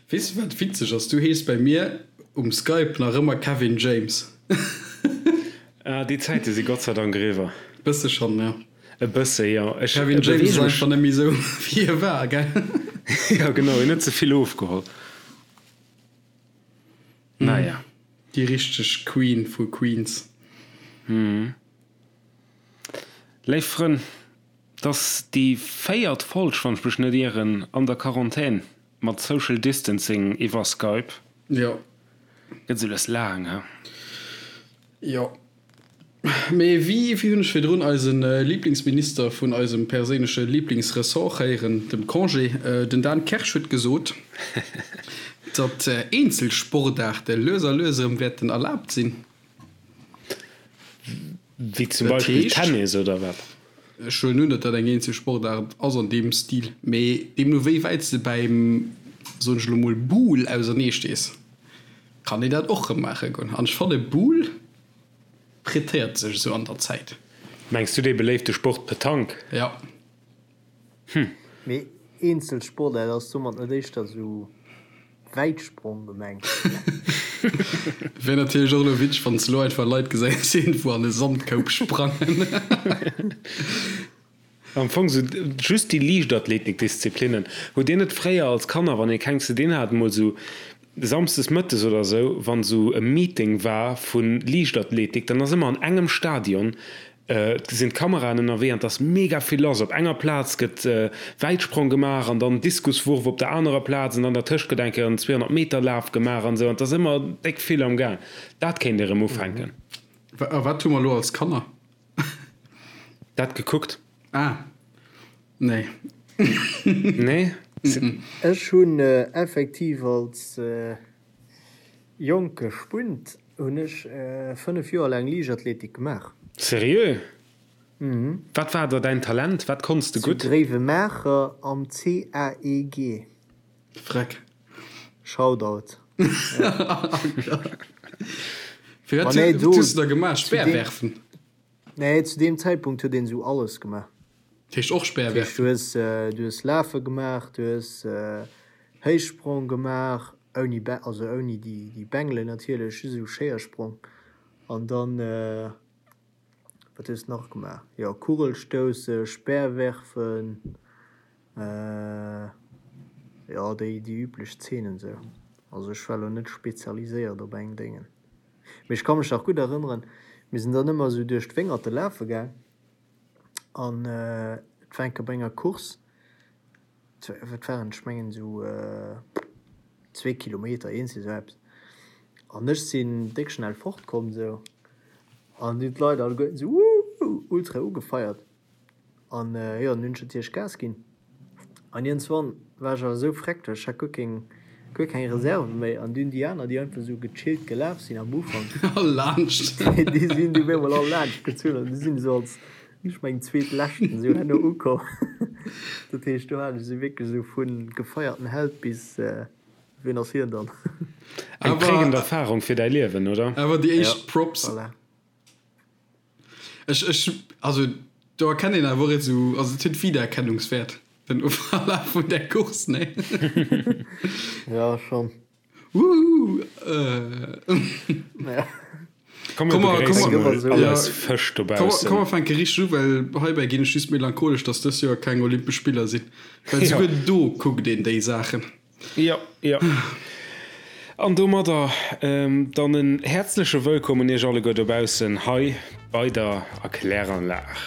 Weess de wat witzeg ass? Du hees bei mir um Skype nach ëmmer Kevin James. Ah, déi Zäite si Gott sei Dank eriwwer. Bësse schonn, jo. E bësse, jo. Ech Kevin James ass einfach net méi esou wéi e war, gell? Jo, genau, hien huet ze vill ofgeholl. Naja. Déi richteg Queen vu Queens. Léif Frënn, 't ass déi véiert Folg, wann ech mech net ieren, an der Quarantän. Mat Social Distancing iwwer Skype. Jo. Gëtt esou lues laang, he? Jo. Mee wéi, wéi hunn ech virdrun eise Liblingsminister vun eisem perséinleche Liblingsressort héieren, dem Congé, den Dan Kersch huet gesot, datt eenzel Sportaarte lues a lues erëm wäerten erlaabt sinn. Wéi zum Beispill Tennis oder wat? Ech huelen un, datt dat eng eenzel Sportaart ass an deem Stil, mee deemno wéi wäit s de bäim, soen ech elo mol, Boule ausernee stees, kann een dat och rëm maache goen. An ech fanne Boule prêtéiert sech esou an der Zäit. Mengs du dee beléifte Sport Petanque? Jo. Hm. Mee eenzel Sportaart ass domat net éischter sou Wäitsprong gemengt? Wär natierlech och elo witzeg wann s de elo einfach Leit gesäis iergendwou an e Sandkoup sprangen. Am Fong sou just déi Liichtathletikdisziplinnen. Hutt dir net fréier als Kanner, wann ee keng ze dinn hat, mol sou samsdes mëttes oder sou, wann sou e Meeting war vu Liichtathletik, dann ass ëmmer an engem Stadion Et sinn d'Kameraen ënnerwee an et ass mega vill lass. Op enger Plaz gëtt Wäitsprong gemaach an dann Diskuswurf op der anerer Plaz an dann dertëscht gëtt eng Kéier en 200 Meter Laf gemaach an esou an et ass ëmmer déck vill am Gaang. Dat kéint ee rëm ufänken. A wat hu mer elo als Kanner? Dat gekuckt. Ah, nee. Nee? Ech hunn effektiv als jonke Spunt Hunn ech 5 Joer laang Liichtathletik gemaach. Seriö? Mhm. Wat war da däin Talent? Wat konns de Zu gutt? Gréiwemaacher am CAEG. Freck. Shoutout. Fir wat hues de da gemaach? Speerwerfen? Nee, zu deem Zäitpunkt huet een esou alles gemaach. Dat heescht och Speerwerfen? Du hues, du hues Lafe gemaach, du hues Héichsprong gemaach, ouni, also ouni déi, déi Bengelen natierlech, just esou Schéiersprong. An dann, wat hues de nach gemaach? Jo, Kugelstousse, Speerwerfen, jo, déi, déi üblech Zeenen esou. Also ech war elo net spezialiséiert op eng Déngen. Mee ech ka mech nach gutt erënneren, mir sinn dann ëmmer esou duerch d'Wéngerte lafe gaang an et war eng Kéier bei enger Course, wat waren et, ech mengen esou zwee Kilometer, eent esou eppes, an ech sinn déck schnell fortkomm esou an hunn d'Leit alleguerten esou Wuuh ultra ugefeiert. An jo, dann hunn ech natierlech Gas ginn. An iergendswann war ech awer esou freck, well ech hat guer keng, guer keng Reserve méi. An dunn déi aner, déi einfach esou gechillt gelaf sinn am Ufank, All laanscht. déi sinn du op eemol all laanscht gezunn an du sinn esou als, ech mengen, Zweetleschten esou herno ukomm. Dat heescht, do hat ech esou wierklech esou vu gefeierten Held bis, wien ass hien dann? Eng prägend Erfarung fir däi Liewen, oder? Awer déi éischt Props. Voilà. Ech, ech, also do erkennt een awer och esou, also et huet Wiedererkennungswäert, den Verlaf vun där Course, nee? Ja, schon. Wuhu! Ja. Komm, mir begréisse mol all eis Fësch dobaussen. Komm, mer fänke richteg u, well heibäi ginn ech just melancholesch, dass dës Joer keng Olympesch Spiller sinn. Well souguer do kuckt een déi Saachen. Jo, jo. An domadder dann en häerzleche Wëllkomm un Iech alleguer dobaussen hei bei der Erkläranlag.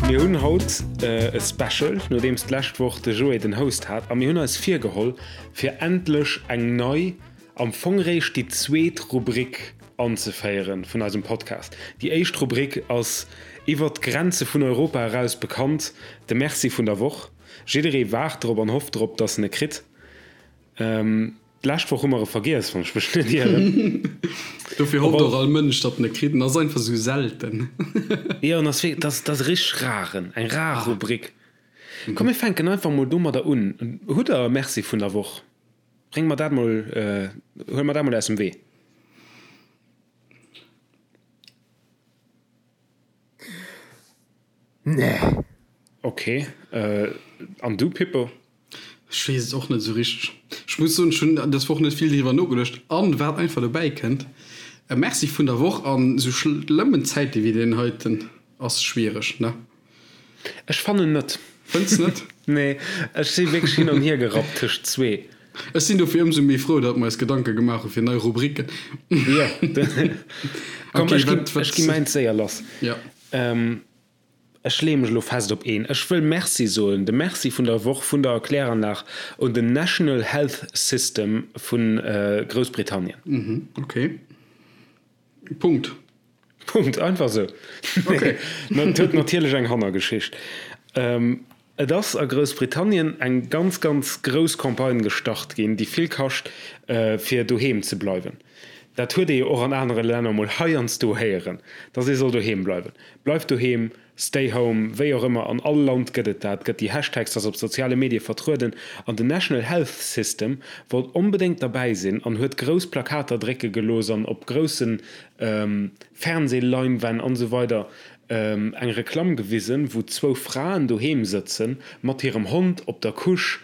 Mir hunn haut e Special, nodeems d'lescht Woch de Joé den Host hat a mir hunn eis virgeholl fir endlech eng nei, am Fong réischt déi zweet Rubrik anzeféieren vun eisem Podcast. Déi éischt Rubrik ass iwwert d'Grenze vun Europa eraus bekannt, de Merci vun der Woch. Jidderee waart drop an hofft drop, dass en e kritt. D'lescht Woch hu mer e vergiess, wann ech mech net ieren. Dofir hofft och all Mënsch, datt en e kritt. En ass einfach esou selten. Jo, en ass wierklech, dat ass e richteg raren, eng rar Rubrik. Komm mir fänken einfach mol domadder un. Hutt der e Merci vun der Woch? Bréng mer dat mol, huel mer dat mol aus dem Wee. Nee. Ok, an du Pippo? Ech weess et och net esou richteg. Ech muss soen, ech hunn dës Woch net vill driwwer nogeduecht. An wat einfach dobäi kënnt, e Merci vun der Woch an esou schlëmmen Zäite wéi deen heiten ass schwiereg, ne? Ech fannen net. Fënns net? Nee, ech si wierklech hin an hier gerappt tëscht zwee. Ech sinn dofir ëmsou méi frou, datt mer eis Gedanke gemaach hu fir nei Rubriken. Jo, komm, ech ginn, ech gi mäins séier lass. Jo. Ech leeë mech elo fest op een. Ech wëll Merci soen, de Merci vun der Woch vun der Kläranlag un den National Health System vu Groussbritannien. Ok. Punkt. Punkt, einfach esou. Okay. Nee, et huet natierlech eng Hannergeschicht. Et ass a Groussbritannien eng ganz, ganz grouss Campagne gestart ginn, déi vill kascht, fir doheem ze bleiwen. Dat huet ee jo och an anere Länner mol heiansdo héieren, dass ee soll doheem bleiwen. Bleif doheem, stay home, wéi och ëmmer, an all Land gëtt et dat, gëtt déi Hashtags, ass op soziale Medie vertrueden an den National Health System wollt onbedéngt derbäi sinn an huet grouss Plakater drécke gelooss an op grousse Fernseh-Leinwänn an esou weider eng Reklamm gewisen, wou zwou Fraen doheem sëtzen mat hirem Hond op der Couche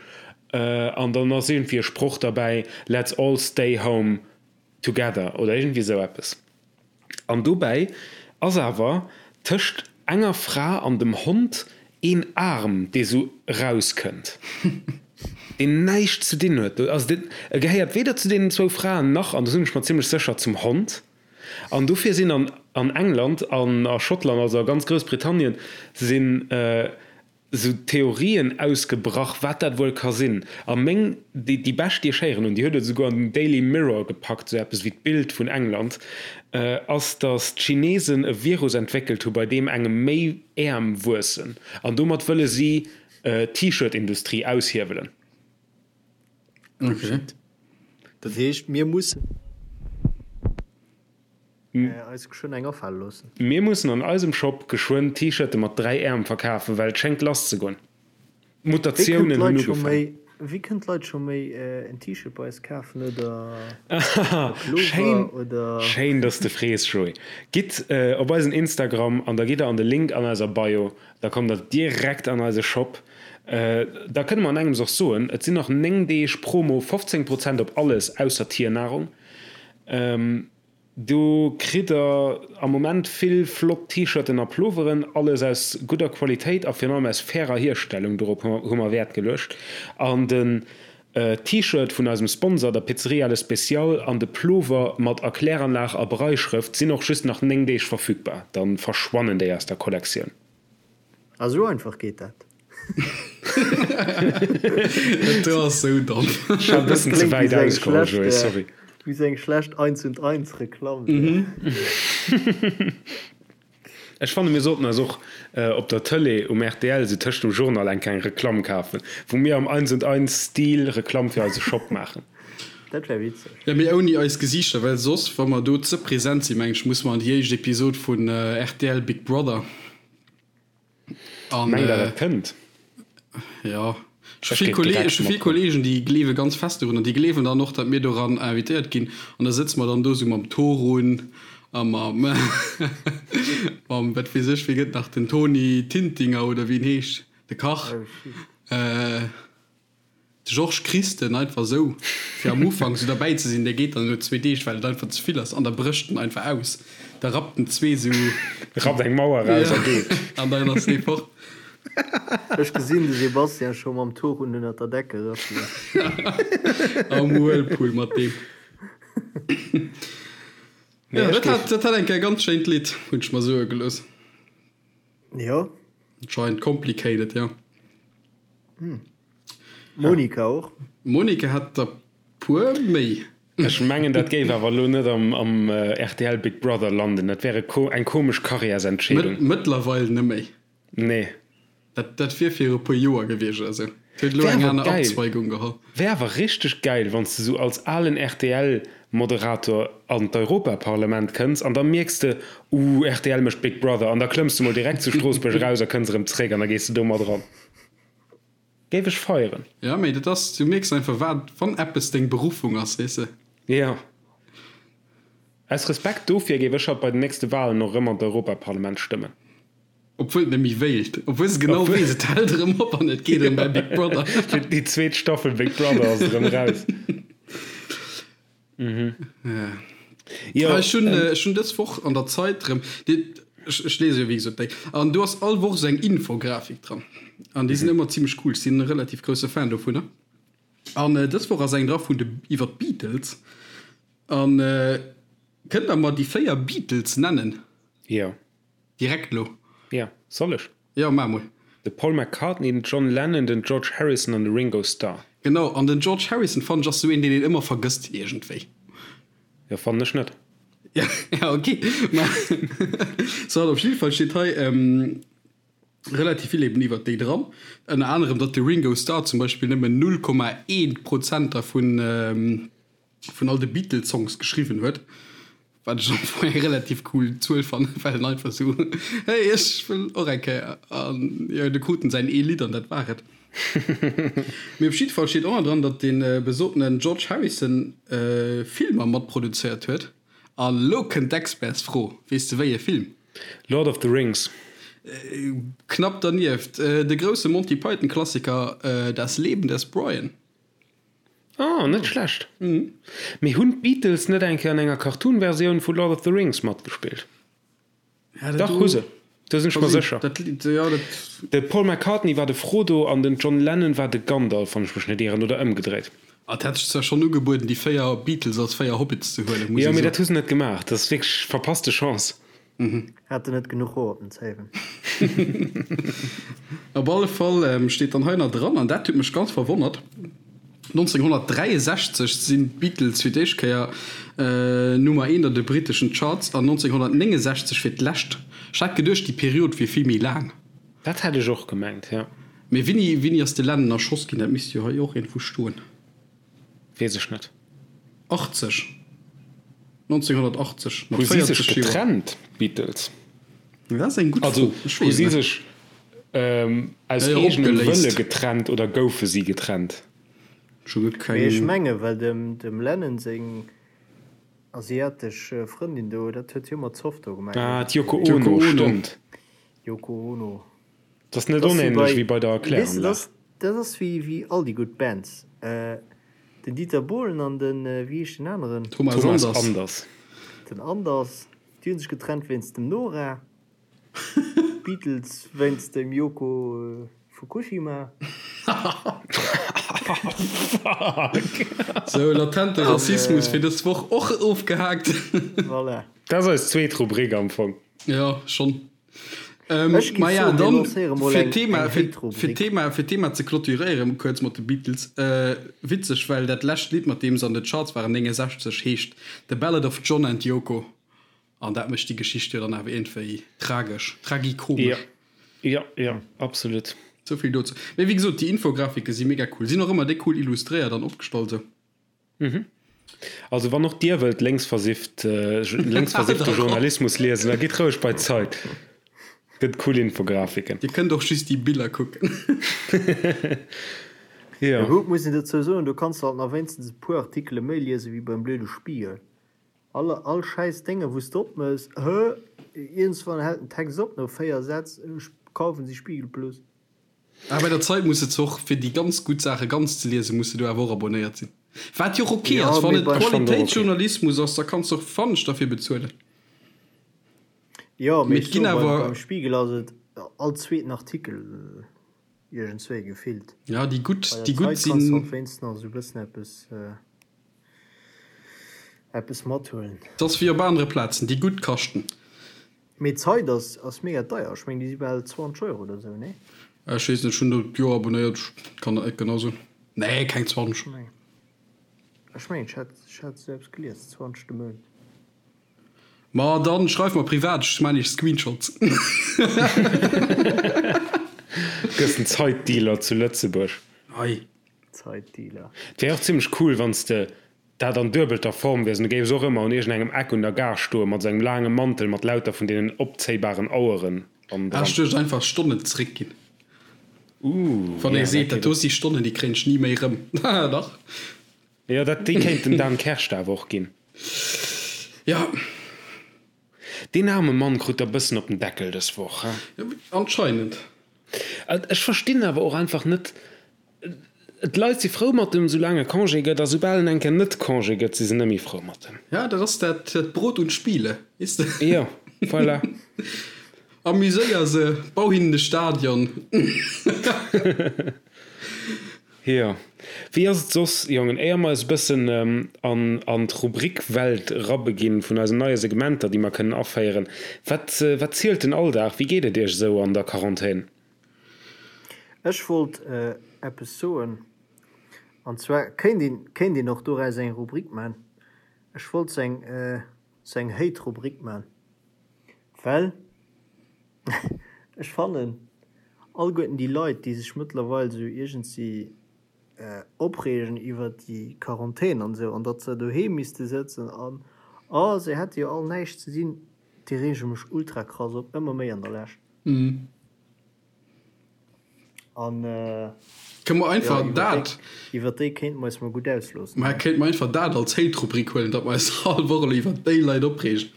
an dann ass iergendwéi e Sproch derbäi, Let's all stay home together oder iergendwéi esou eppes. An dobäi ass awer tëscht enger Fra an dem Hond een Aarm, dee sou erauskënnt, deen näischt ze dinn huet. Also deen, e gehéiert weder zu deenen zwou Fraen nach, an do sinn ech mer zimmlech sécher, zum Hond. An dofir sinn an an England an a Schottland, also a ganz Groussbritannien, sinn esou Theorien ausgebrach, wat dat wuel ka sinn. A meng, déi, déi bescht, déi ech héieren hunn, déi huet et esouguer an den Daily Mirror gepackt, esou eppes wéi d'Bild vun England, ass, datt d'Chinesen e Virus entwéckelt hu bei deem engem méi Äerm wuessen. An domat wëlle si d'T-Shirt-Industrie aushiewelen. Okay. Dat heescht, mir mussen eis geschwënn eng afale loossen. Mir mussen an eisem Shop geschwënn T-Shirte mat 3 Äerm verkafen, well et schéngt lass ze goen. D'Mutatiounen hunn ugefaangen. Wéi kënnen d'Leit scho méi en T-Shirt bei eis kafen oder e Pullover oder? Schéin, dass de frees, Joé. Gitt op eisen Instagram an da gitt der an de Link an eiser Bio, da kommt der direkt an eise Shop. Da kënne mer an engems och soen, et sinn nach 9 Deeg Promo, 15 Prozent op alles ausser Tiernahrung. Do kritt der am Moment vill flott T-Shirten a Ploveren, alles aus gudder Qualitéit a virun allem aus fairer Hierstellung, dorop hu mer Wäert geluecht. An den T-Shirt vun eisem Sponsor, der Pizzeria Le Special, an de Plover mat Erkläranlag a Brailleschrëft sinn och just nach 9 Deeg verfügbar, dann verschwannen déi aus der Kollektioun. Ah sou einfach geet dat. Dat ass sou domm. Ech hat e bëssen ze wäit ausgeholl, Joé, sorry. Wéi sou eng schlecht Eins und Eins Reklamm. Ech fanne mir sollten eis och op der Tëlee um rtl sou tëscht dem Journal eng kleng Reklamm kafen, wou mir am Eins und Eins Stil Reklamm fir eise Shop maachen. Dat wär witzeg. Jo, mee ouni eis Gesiichter, well soss, wa mer do ze present sinn, meng ech, musse mer an déi éischt Episod vun rtl Big Brother. An, Mengt der dat kënnt? Jo, ech hu vill Kollegen, ech hu vill Kollegen, déi gleewe ganz fest dorun an déi gleewen dann och, datt mir doran invitéiert ginn an da sëtze mer dann do sou mam Torun a mam, mam wat weess ech, wéi gëtt nach den Toni Tintinger oder wéi en heescht, de Kach. De Georges Christen einfach esou fir am Ufank esou derbäi ze sinn, dee geet dann no zwee Deeg, well et einfach ze vill ass an da brécht en einfach aus. Da rappt en zwee esou. Rappt eng Mauer raus a geet. An dann ass dee fort. Ech gesinn de Sébastien scho mam Torun ënnert der Decke rëffelen. Am Whirlpool mat deem. Jo, dat hat, dat hat eng Kéier e ganz schéint Lidd, hunn ech mer soe gelooss. Jo. Anscheinend complicated, jo. Monika och. Monika hat der puer méi. Ech mengen dat géif awer elo net am rtl Big Brother landen, dat wär eng komesch Karriärsentscheedung. Mëttlerweil net méi. Nee. Dat, dat wier fir e puer Joer gewiescht oder sou. Et huet elo Wär eng awer aner geil. Abzweigung geholl. Wär awer richteg geil, wann s de sou als alen RTL-Moderator an d'Europaparlament kënns an da mierks de, Ooh, rtl mécht Big Brother an da klëmms de mol direkt zu Stroossbuerg eraus a kënns erëm zréck an da gees de do mat eran. Géif ech feieren. Ja, mee dat ass, du mierks einfach, wat, wann eppes deng Beruffung ass, weess de. Jo. Aus Respekt dofir géif ech haut bei den nächste Walen och erëm an d'Europaparlament stëmmen. Obwuel et net méi wéilt. Obwuel se genau weess, et hält erëm op an et geet erëm bei Big Brother. Fir déi zweet Staffel Big Brother ass et erëm raus. Jo, ech hunn ech hunn dës Woch an der Zeit erëm, ech ech lese jo wéi gesot déi, an do ass all Woch esou eng Infografik dran. An déi sinn ëmmer zimmlech cool. Ech sinn e relativ grousse Fan dovunner. An dës Woch ass eng dra vun de iwwer d'Beatles. An kënnt der mer déi 4 Beatles nennen? Jo. Direkt lo? Jo, soll ech? Jo, maach mol. De Paul McCartney, den John Lennon, den George Harrison an de Ringo Starr. Genau, an den George Harrison fannen ech ass sou een deen een ëmmer vergësst iergendwéi. Jo, fannen ech net. Ja, ja ok, ma soit, op jidde Fall steet hei relativ vill eben iwwert déi dran, ënner anerem datt de Ringo Starr zum Beispill nëmmen 0,1 Prozent dervun vun all de Beatles-Songs geschriwwen huet, wat ech am Fong eng relativ cool Zuel fannen, well en einfach sou, hey, ech wëll och eng Kéier, an jo, du krut en säin ee Lidd an dat war et. Mee op jidde Fall steet och nach dran, datt dee besotenen George Harrison Filmer matproduzéiert huet. A lo kënnt d'Expertsfro, Weess de wéi e Film? Lord of the Rings. Knapp dernieft, de grousse Monty Python-Klassiker Das Leben des Brian. Oh, net schlecht. Mee hunn d'Beatles net eng Kéier an enger Cartoon-Versioun vu Lord of the Rings matgespillt? Dach, hu se. Do sinn ech mer sécher. De Paul McCartney war de Frodo an den John Lennon war de Gandalf, wann ech mech net ieren, oder ëmgedréit. Et hätt sech zwar schonn ugebueden, déi 4 Beatles als 4 Hobbits ze huelen, muss ee soen. Jo, mee dat hu se net gemaach. Dat ass wierklech verpasste Chance. Haten net genuch Hoer op den Zéiwen. Op alle Fall steet dann hei nach dran, an dat huet mech ganz verwonnert, 1963 sinn d'Beatles fir d'éischt Kéier Nummer eent an de britteschen Charts an 1969 fir d'lescht. Ech hat geduecht, déi Period wier vill méi laang. Dat hätt ech och gemengt, jo. Mee wéini, wéini ass de Lennon erschoss ginn? Dat misst jo hei och iergendwou stoen. Weess ech net. 80. 1980, mat 40 Joer. Hu si sech getrennt, d'Beatles? Dat ass eng gutt Fro. Also, hu si sech aus eegenem Wëlle getrennt oder goufe si getrennt? Ech hu guer keng. Mee ech menge well dem Lennon seng asiatesch Frëndin do, dat huet hie mat Zoff do gemaach. Ah, d'Yoko Ono, stëmmt. Yoko Ono. Dat ass net onähnlech wéi bei der Kläranlag. Dat ass wéi all déi gutt Bands. Den Dieter Bohlen an den, wéi heescht den aneren? Thomas Anders. Den Anders, déi hu sech getrennt wéinst dem Nora. D'Beatles wéinst dem Yoko Fukushima. Fuck! Sou, latente Rassismus fir dës Woch och ofgehaakt. Voilà. Dat ass eis zweet Rubrik am Fong. Jo, schonn. Ech géif Maja, soen, mir dann lancéiere mol fir eng, d'Thema, eng fir, Hate-Rubrik. fir d'Thema, fir d'Thema ze clôturéieren, kuerz mat de Beatles. Äh, witzeg, well dat lescht Lidd, mat deem se an de Charts waren, 69, heescht The Ballad of John and Yoko. An dat mécht déi Geschicht jo dann awer iergendwéi tragesch, tragikomesch. Jo, jo, jo, absolut. Souvill dozou. Mee wéi gesot, déi Infografike si mega cool. Sinn och ëmmer déck cool illustréiert an opgestallt esou. Mhm. Also wann och Dir wëllt lénksversifft, lénksversiffte Journalismus liesen, da gitt roueg bei d'Zeit. Gëtt cool Infografiken. Dir kënnt och just déi Biller kucken. Jo. Gutt, muss een dozou soen, do kanns de halt nach wéinstens e puer Artikele méi liese wéi beim blöde Spiegel. All, all schäiss Dénge wou s de opmëss, hë, iergendswann hält den Text op no 4 Sätz, ech kaufen si Spiegel Plus. Ah, bei der Zeit muss de och fir déi ganz gutt Saache ganz ze liesen, muss de do awer och abonnéiert sinn. Wat jo och ok Ja, ass, wann mee et bei. Ech fannen och ok. Qualitéitsjournalismus ass, da kanns de och fannen derfir bezuelen. Jo, mee Mee ech et ginn soe beim, awer. beim Spiegel ass et all zweeten Artikel iergendswéi gefillt. Ja, déi gutt, Bei der déi gutt Zeit kanns de sinn. halt wéinstens nach esou e bëssen eppes, eppes mathuelen. Et ass wéi op anere Plazen, déi gutt kaschten. Mee d'Zeit ass ass mega deier, ech meng déi si bal 20 Euro oder sou, nee? Ech weess net, ech hunn do d'Joer abonnéiert, ech kann dat net genau soen. Nee, keng 20. Ech mengen ech hat ech hat sou eppes gelies, 20 de Mount. Ma dann schreif mer privat, ech maan iech Screenshots. Gëss den Zeitdealer zu Lëtzebuerg. Hei. Zeitdealer. Et wär och zimmlech cool, wann s de dat an duebelter Form wiers an du géifs och ëmmer un iergendengem Eck un der Gare stoe mat esou engem laange Mantel mat lauter vun deenen opzéibaren Aueren an dran. Ech duecht einfach Stonnen zeréckginn. Ooh, Wann ee seet, dat do si Stonnen, déi kréien ech ni méi rëm. Dach. Jo, dat, déi kéint dem Dan Kersch awer och ginn. Jo. Deen aarme Mann krut der bëssen op den Deckel dës Woch, he? Anscheinend. Ech verstinn awer och einfach net, d'Leit si frou mat em, soulaang e Congé gëtt, a soubal en eng Kéier net Congé gëtt, si se net méi frou mat em. Ja, dat ass dat Brot und Spiele, weess de. Jo, voilà. Amuséier se, bau hinnen e Stadion. Jo. Wéi ass et soss, Jongen, éier mer eis e bëssen an an d'Rubrik-Welt erabeginn vun eisen neie Segmenter, déi mer kënnen aféieren, wat wat zielt den Alldag? Wéi geet et Iech esou an der Quarantän? Ech wollt eppes soen, an zwar kéint een kéint een och doraus eng Rubrik man. Ech wollt sou eng sou eng Hate-Rubrik man, well Ech fannen alleguerten déi Leit, déi sech mëttlerweil esou iergendsi opreegen iwwert déi Quarantän an esou an datt se doheem misste sëtzen an oh se hätte jo all näischt ze dinn, déi reege mech ultra krass op, ëmmer méi an der Lescht. An Kënne mer einfach dat. Iwwert déi kéinte mer eis mol gutt ausloossen. Mä kéinte mer einfach dat als Hate-Rubrik huelen, datt mer eis all Woch elo iwwert déi Leit opreegen.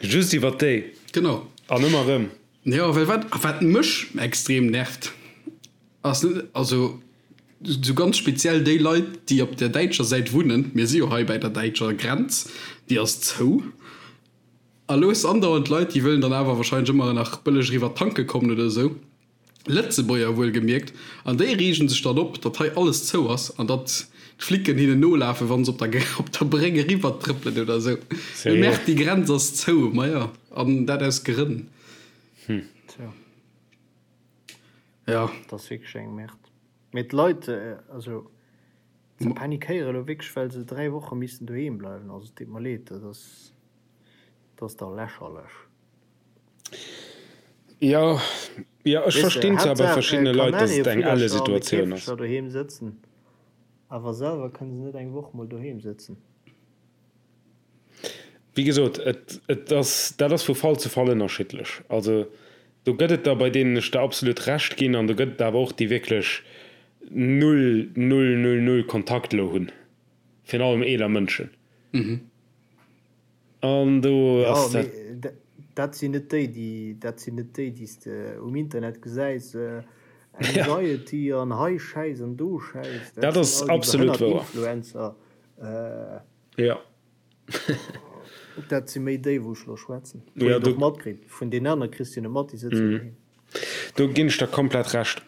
Just iwwert déi. Genau. An ëmmer erëm. Jo, well wat, wat mech extrem nervt, ass net, also sou ganz speziell déi Leit, déi op der däitscher Säit wunnen, mir si jo hei bäi der däitscher Grenz, déi ass zou, a lo hues de andauernd Leit, déi wëllen dann awer wahrscheinlech ëmmer nach bëlleg eriwwer tanke kommen oder esou. Lëtzebuerger wuelgemierkt, an déi reegen sech dann op, datt hei alles zou ass an datt d'Flicken hinnen nolafen, wa se op der op der Bréck eriwwer trëppelen oder esou. Mee Merde, déi Grenz ass zou. Maja, an dat aus Grënn. Tja. Ja. Dat ass wierklech eng Merde. Mee d'Leit, also, se panikéiere elo wierklech, well se 3 Woche missten doheem bleiwen. Also, et deet mer leed, dat ass, dat ass da lächerlech. Jo, jo, ech verstinn zwar bei verschiddene Leit, datt et eng elle Situatioun ass. Doheem sëtzen, awer selwer kënne se net eng Woch mol doheem sëtzen. Wéi gesot, et, et ass, dat ass vu Fall zu Fall ënnerschiddlech. Also do gëtt et der, bei deenen ech der absolut Recht ginn, an do gëtt et awer och déi wierklech null, null, null, null Kontakt elo hunn, virun allem eeler Mënschen. An do ass dat. Jo, mee dat sinn net déi, déi, dat sinn net déi, déi s de um Internet gesäis, Anxiety an hei Schäiss an do Schäiss. Dat ass absolut wouer. Influencer. Jo. Dat si méi déi, wou ech elo schwätzen. Wou een och matkritt. Vun deenen anere kriss de jo net mat, déi sëtzen doheem. Do ginn ech der komplett Recht.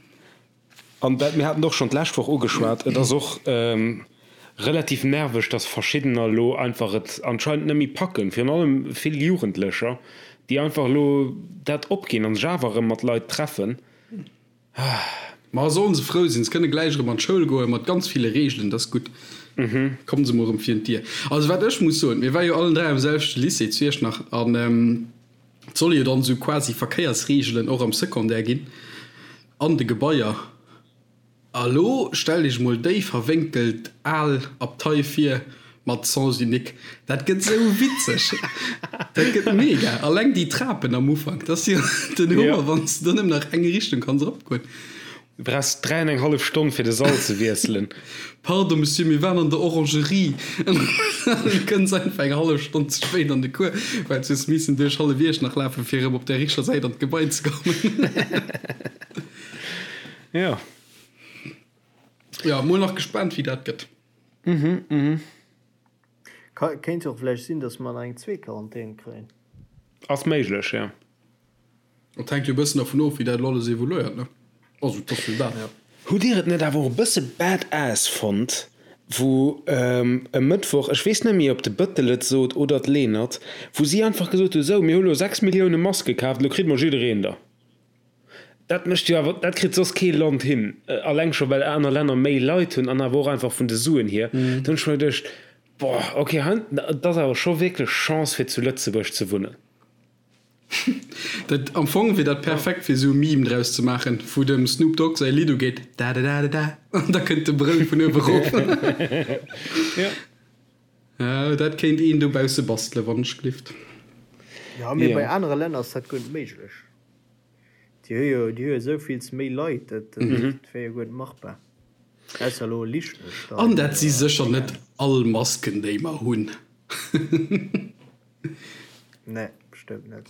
An dat, mir haten et och schonn d'lescht Woch ugeschwat, et ass och relativ nerveg, dass verschiddener elo einfach et anscheinend net méi packen, virun allem vill Jugendlecher, déi einfach elo dat opginn a sech awer erëm mat Leit treffen. Ma sollen se frou sinn, se kënne gläich erëm an d'Schoul goen, mat ganz ville Reegelen, dat ass gutt. Kommen se mol erëm virun d'Dier. Also wat ech muss soen, mir ware jo allen 3 am selwechte Lycée zu Iechternach an et solle jo dann esou quasi Verkéiersreegelen och am Secondaire ginn. An de Gebaier. A lo stellt iech mol déi verwénkelt al Abtei vir mat Sens unique. Dat gëtt sou witzeg. Dat gëtt mega. Alleng déi Trapen am Ufank, dat ass jo den Hummer, wann s de do nëmmen nach eng Richtung kanns eropgoen. Du brauchs 3 an eng hallef Stonn fir de Sall ze wiesselen. Pardon Monsieur, mir waren an der Orangerie. An du kënns einfach eng hallef Stonn ze spéit an de Cours, well s hues missen duerch hallef Iechternach lafen, fir erëm op der richteger Säit an d'Gebai ze kommen. Jo. Jo, mol nach gespaant wéi dat gëtt. Kéint jo och vläicht sinn, datt mer nach eng zweet Quarantän kréien. Ass méiglech, jo. Et hänkt jo e bëssen dervun of, wéi dat elo alles evoluéiert, ne? Also, et ass jo dat. Hutt Dir et net awer och e bësse badass fonnt, wou e Mëttwoch, ech weess net méi, ob de Bëttel et sot oder d'Lenert, wou si einfach gesot hu, sou, mir hu lo 6 Millioune Maske kaaft, elo kritt mol jiddereen der. Dat mécht jo awer, dat kritt soss kee Land hin, alleng scho well aner Länner méi Leit hunn an awer och einfach vun de Suen hier. Do hunn ech mer geduecht, boah, okay, hei, et ass awer scho wierklech Chance fir zu Lëtzebuerg ze wunnen. Dat, am Fong wier dat perfekt fir esou e Meme draus ze maachen, wou dem Snoop Dogg säi Lidd ugeet, da-da-da-da-da, an da kënnt de Brëll vun uewe rof. Ja. Ja, dat kéint een dobausse bastelen, wann ech glift. Ja, mee bei anere Länner ass dat guer net méiglech. Déi hu jo, déi hu jo esou vills méi Leit, dat wär jo guer net machbar. Ausser elo Liechtenstein An dat si sécher net all Masken, déi mer hunn. Nee, bestëmmt net.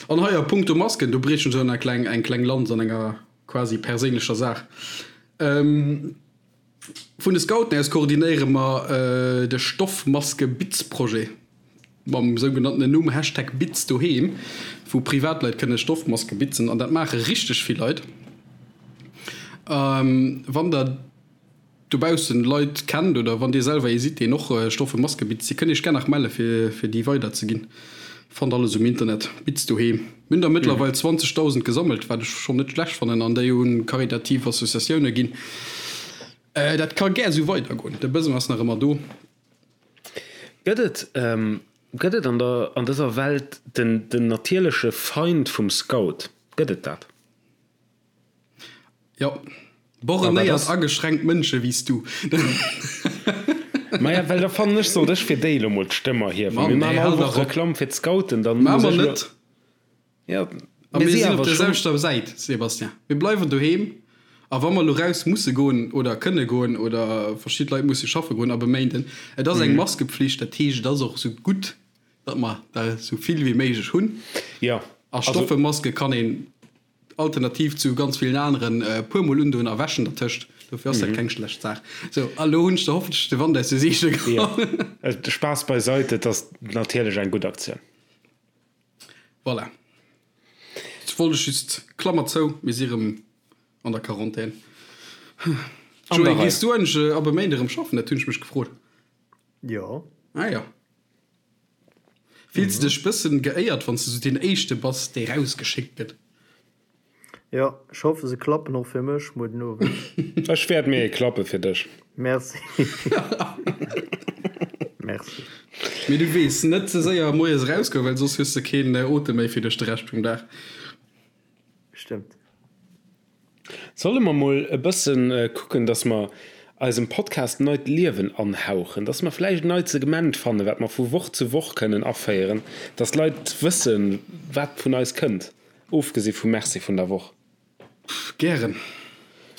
An hei a punkto Masken, do briechen ech eng kleng, eng kleng Lanz an enger quasi perséinlecher Saach. Vun de Scouten aus koordinéiere mer de Stoffmaske-Bitz-Projet mam sougenanntenen Numm Hashtag Bitz doheem, wou Privatleit kënne Stoffmaske bitzen an dat maache richteg vill Leit. Wann der dobaussen Leit kennt oder wann dir selwer ee sidd, deen och Stoffe Maske bitzt, dir kënnt iech gär nach melle fir fir déi weider ze ginn. Fannt alles um Internet, Bitz doheem. Mir hunn der mëttlerweil 20.000 gesammelt, wat ech schonn net schlecht fannen, an déi un karitativ Associatioune ginn. Dat ka gär esou weider goen, de Besoin ass nach ëmmer do. Gëtt et gëtt et an der an dëser Welt den den natierleche Feind vum Scout? Gëtt et dat? Jo, borrenéiert ageschränkt Mënsche wéi s du. Maja, well da fannen ech, sollt ech fir déi elo mol d'Stëmm erhiewen. Mann, Mir maachen ey, all hal Woch dach op. Reklamm fir d'Scouten, dann Maache muss mer ech elo. net. Ja, A mir mir si sinn op awer der schonn. selwechter Säit, Sébastien. Mir bleiwen doheem. A wa mer elo raus musse goen oder kënne goen oder verschidde Leit musse schaffe goen ab e Méinden, et ass eng Maskepflicht, dat heescht, et ass och esou gutt, datt mer der esou vill wéi méiglech hunn. Jo, A also. stoffe Maske kann een Alternativ zu ganz villen aneren e puer mol undoen a wäschen dertëscht. Dofir ass dat keng schlecht Saach. Sou, a lo hunn ech der hoffentlech de Wand aus de Seegele geholl. Jo, Spaass beiseit, et ass natierlech eng gutt Aktioun. Voilà. Ech wollt ech just, Klammer zou, mir si rëm an der Quarantän. An der Joé, Rei. gees du eigentlech ab e Méinde rëm schaffen? Dat hunn ech mech gefrot. Jo. Ah jo. Fills de dech bëssen geéiert wanns de sou deen éischte bass dee rausgeschéckt gëtt? Jo, ech hoffe se klappen och fir mech muer den Owend. Ech wäert mir ee klappe fir dech. Merci. Merci. Mee du weess, net ze séier moies erausgoen, well soss hues de keen Otem méi fir duerch de Rescht vum Dag. Stëmmt. Solle mer mol e bëssen kucken, dass mer eisem Podcast neit Liewen anhauchen, dass mer vläicht en neit Segment fannen, wat mer vu Woch zu Woch kënnen aféieren, dass d'Leit wëssen, wat vun eis kënnt, ofgesi vum Merci vun der Woch. Gären.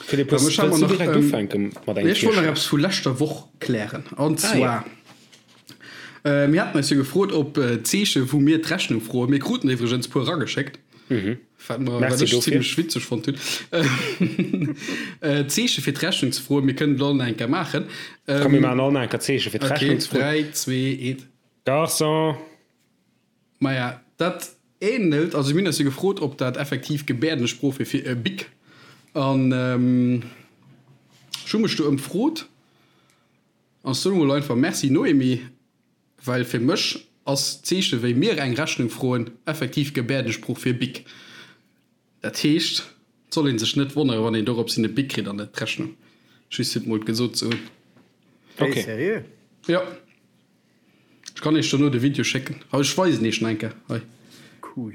Philippe, hues, wëlls du direkt ufänke mat engem Ech wollt nach Virschlag? eppes vu leschter Woch klären. An Ah, zwar, jo. mir haten eis jo gefrot, ob d'Zeeche wou mir d'Rechnung froen, mir kruten iwwregens puer erageschéckt, Wat mer, wat Merci ech dofir. zimmlech witzeg fonnt hunn. Zeeche fir d'Rechnung ze froen. Mir kënnen et all nach eng Kéier maachen. Komm, mir maachen all nach eng Kéier Zeeche fir Okay, d'Rechnung ze froen. 3, 2, 1. Garçon! Maja, dat ähnelt, also mir hunn eis jo gefrot, ob dat effektiv Gebäerdensprooch wier fir e Bic. An ech hu mech do ëmfrot an soen emol einfach Merci Noémie. Well fir mech ass d'Zeeche wéi mir eng Rechnung froen effektiv Gebäerdesprooch fir Bic. Dat heescht, et soll ee sech net wonnere wann een dorops hin e Bic kritt an net d'Rechnung. Just fir et mol gesot ze hunn. Hey, Okay. seriö? Jo. Ech kann iech dono de Video schécken. Hei, ech weisen iech en eng Kéier. Hei. Cool.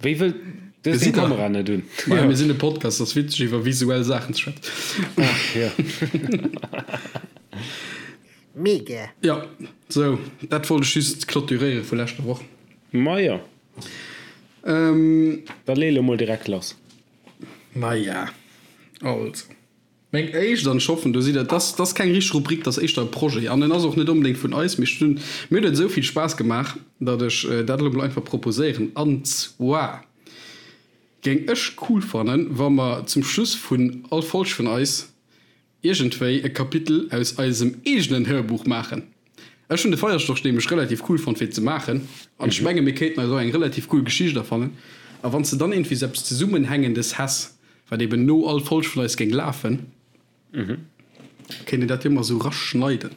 Wéi wëll du hues deng Gesitt der? Kamera net un? Maja, mir sinn e Podcast, ass witzeg iwwer visuell Saachen ze schwätzen. Ach jo. Mega! Jo, sou, dat wollt ech just clôturéiere vu leschter Woch. Maja. Ähm. Da lee lo mol direkt lass. Maja, also, meng éischt, an ech hoffen, do sidd der, dat ass keng richteg Rubrik, dat ass éischter e Projet an en ass och net onbedéngt vun eis, mee ech hunn, mir huet et esou vill Spaass gemaach, datt ech dat elo mol einfach proposéieren. An zwar géing ech cool fannen, wa mer zum Schluss vun all Folg vun eis iergendwéi e Kapitel aus eisem eegenen Hörbuch maachen. Ech hunn de Feierstorch nämlech relativ cool fonnt fir ze maachen an ech menge mir kéinten eis och eng relativ cool Geschicht erfannen. A wann s de dann iergendwéi sou eppes Zesummenhängendes häss, wat eben no all Folg vun eis géing lafen, kéint een dat jo emmer sou raschneiden.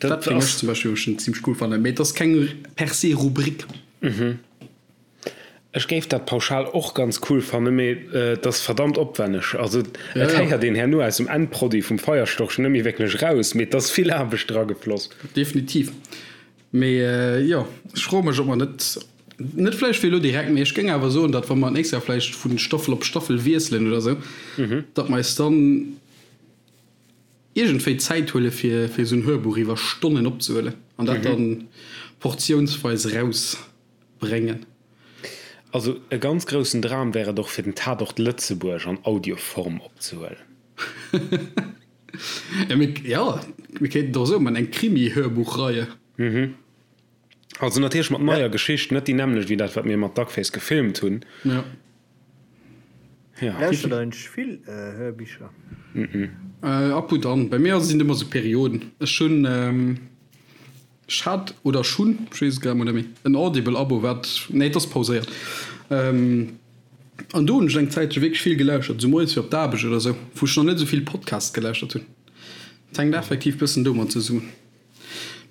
Dat géing ech zum Beispill schon zimmlech cool fannen, mee et ass keng per se Rubrik. Ech géif dat pauschal och ganz cool fannen, mee et ass verdammt opwenneg. Also et héiert een herno aus dem Endproduit vum Feierstorch net méi wierklech raus, mee et ass vill Aarbecht dragefloss. Definitiv. Mee jo, ech froe mech, ob mer net, net vläicht fir elo direkt, mee ech géing awer soen, datt wa mer d'nächst Joer vläicht vu Staffel op Staffel wiesselen oder esou, datt mer eis dann iergendwéi Zäit huele fir fir esou en Hörbuch iwwer Stonnen opzehuelen an dat dann portiounsweis erausbréngen. Also e ganz groussen Dram wär et och fir den Tatort Lëtzebuerg an Audioform opzehuelen. Ja, mir, ja, mir kéinten et och esou man, eng Krimi-Hörbuchreihe. Also natierlech mat neier Geschicht, net déi nämmlecht wéi dat wat mir mat Duckface gefilmt hunn. Ja. Ja. Lauschtert der eigentlech vill Hörbicher? Ab und an. Bei mir sinn et ëmmer sou Perioden. Ech hunn, ech hat oder ech hunn, ech weess et grad mol net méi, en Audible-Abo wat, nee et ass pauséiert. An do hunn ech eng Zäitche wierklech vill gelauschtert, esou moies fir op d'Aarbecht oder esou, wou ech nach net esou vill Podcasts gelauschtert hunn. Et hänkt effektiv bëssen domat zesummen.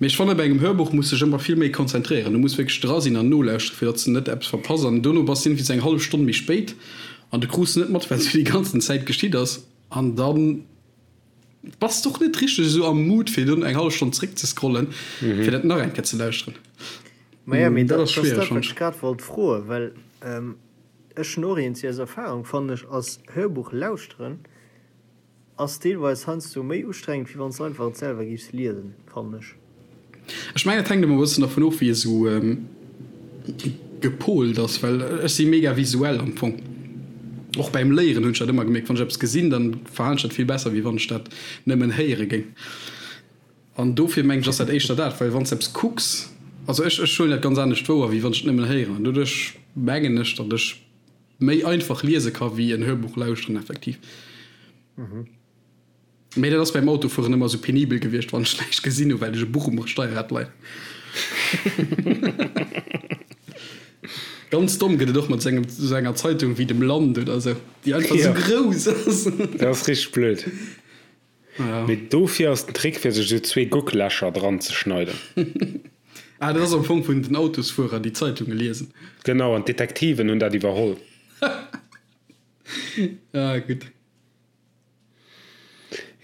Mee ech fannen, bei engem Hörbuch muss sech ëmmer vill méi konzentréieren. Du muss wierklech dra sinn an nolauschteren, fir datt s de net eppes verpass. An dono bass de iergendwéi sou eng hallef Stonn méi spéit an du krus net mat, wat sou déi ganzen Zäit geschitt ass. An da bass de och net richteg esou am Mood, fir dunn eng hallef Stonn zréck ze scrollen, fir dat nach eng Kéier ze lauschteren. Maja, mee dat ass dat, wat ech grad wollt froen, well ech hunn och eent, aus Erfahrung, fannen ech, ass Hörbuch lauschteren Ass deelweis heiansdo méi ustrengend wéi wanns de einfach et selwer géifs liesen, fannen ech. Ech mengen et hänkt emmer e bëssen dervun of wéi ee sou gepolt ass, well ech si mega visuell am Fong. Och beim Léieren hunn ech dat ëmmer gemierkt, wann ech eppes gesinn, dann verhalen ech dat vill besser wéi wann ech dat nëmmen héiere géing. An dofir mengen ech ass dat éischter dat, well wann s de eppes kucks, also ech ech huelen dat ganz anescht wouer wéi wann ech et nëmmen héieren an doduerch mengen ech datt ech méi einfach liese ka wéi en Hörbuch lauschteren effektiv. Mee dat ass beim Autofueren ëmmer esou penibel gewiescht, wann ech näischt gesinn hu well ech e Buch um Steierrad leien. Ganz domm gëtt et och mat sou engem sou enger Zeitung wéi dem Land oder sou, déi einfach sou grouss ass. Dat ass richteg blöd. Mee dofir ass den Trick fir sech esou zwee Gucklächer dran ze schneiden. Ah, dat ass am Fong vun den Autosfuerer déi Zeitunge liesen. Genau, an d'Detektiven hunn dat iwwerholl. Ah, gutt.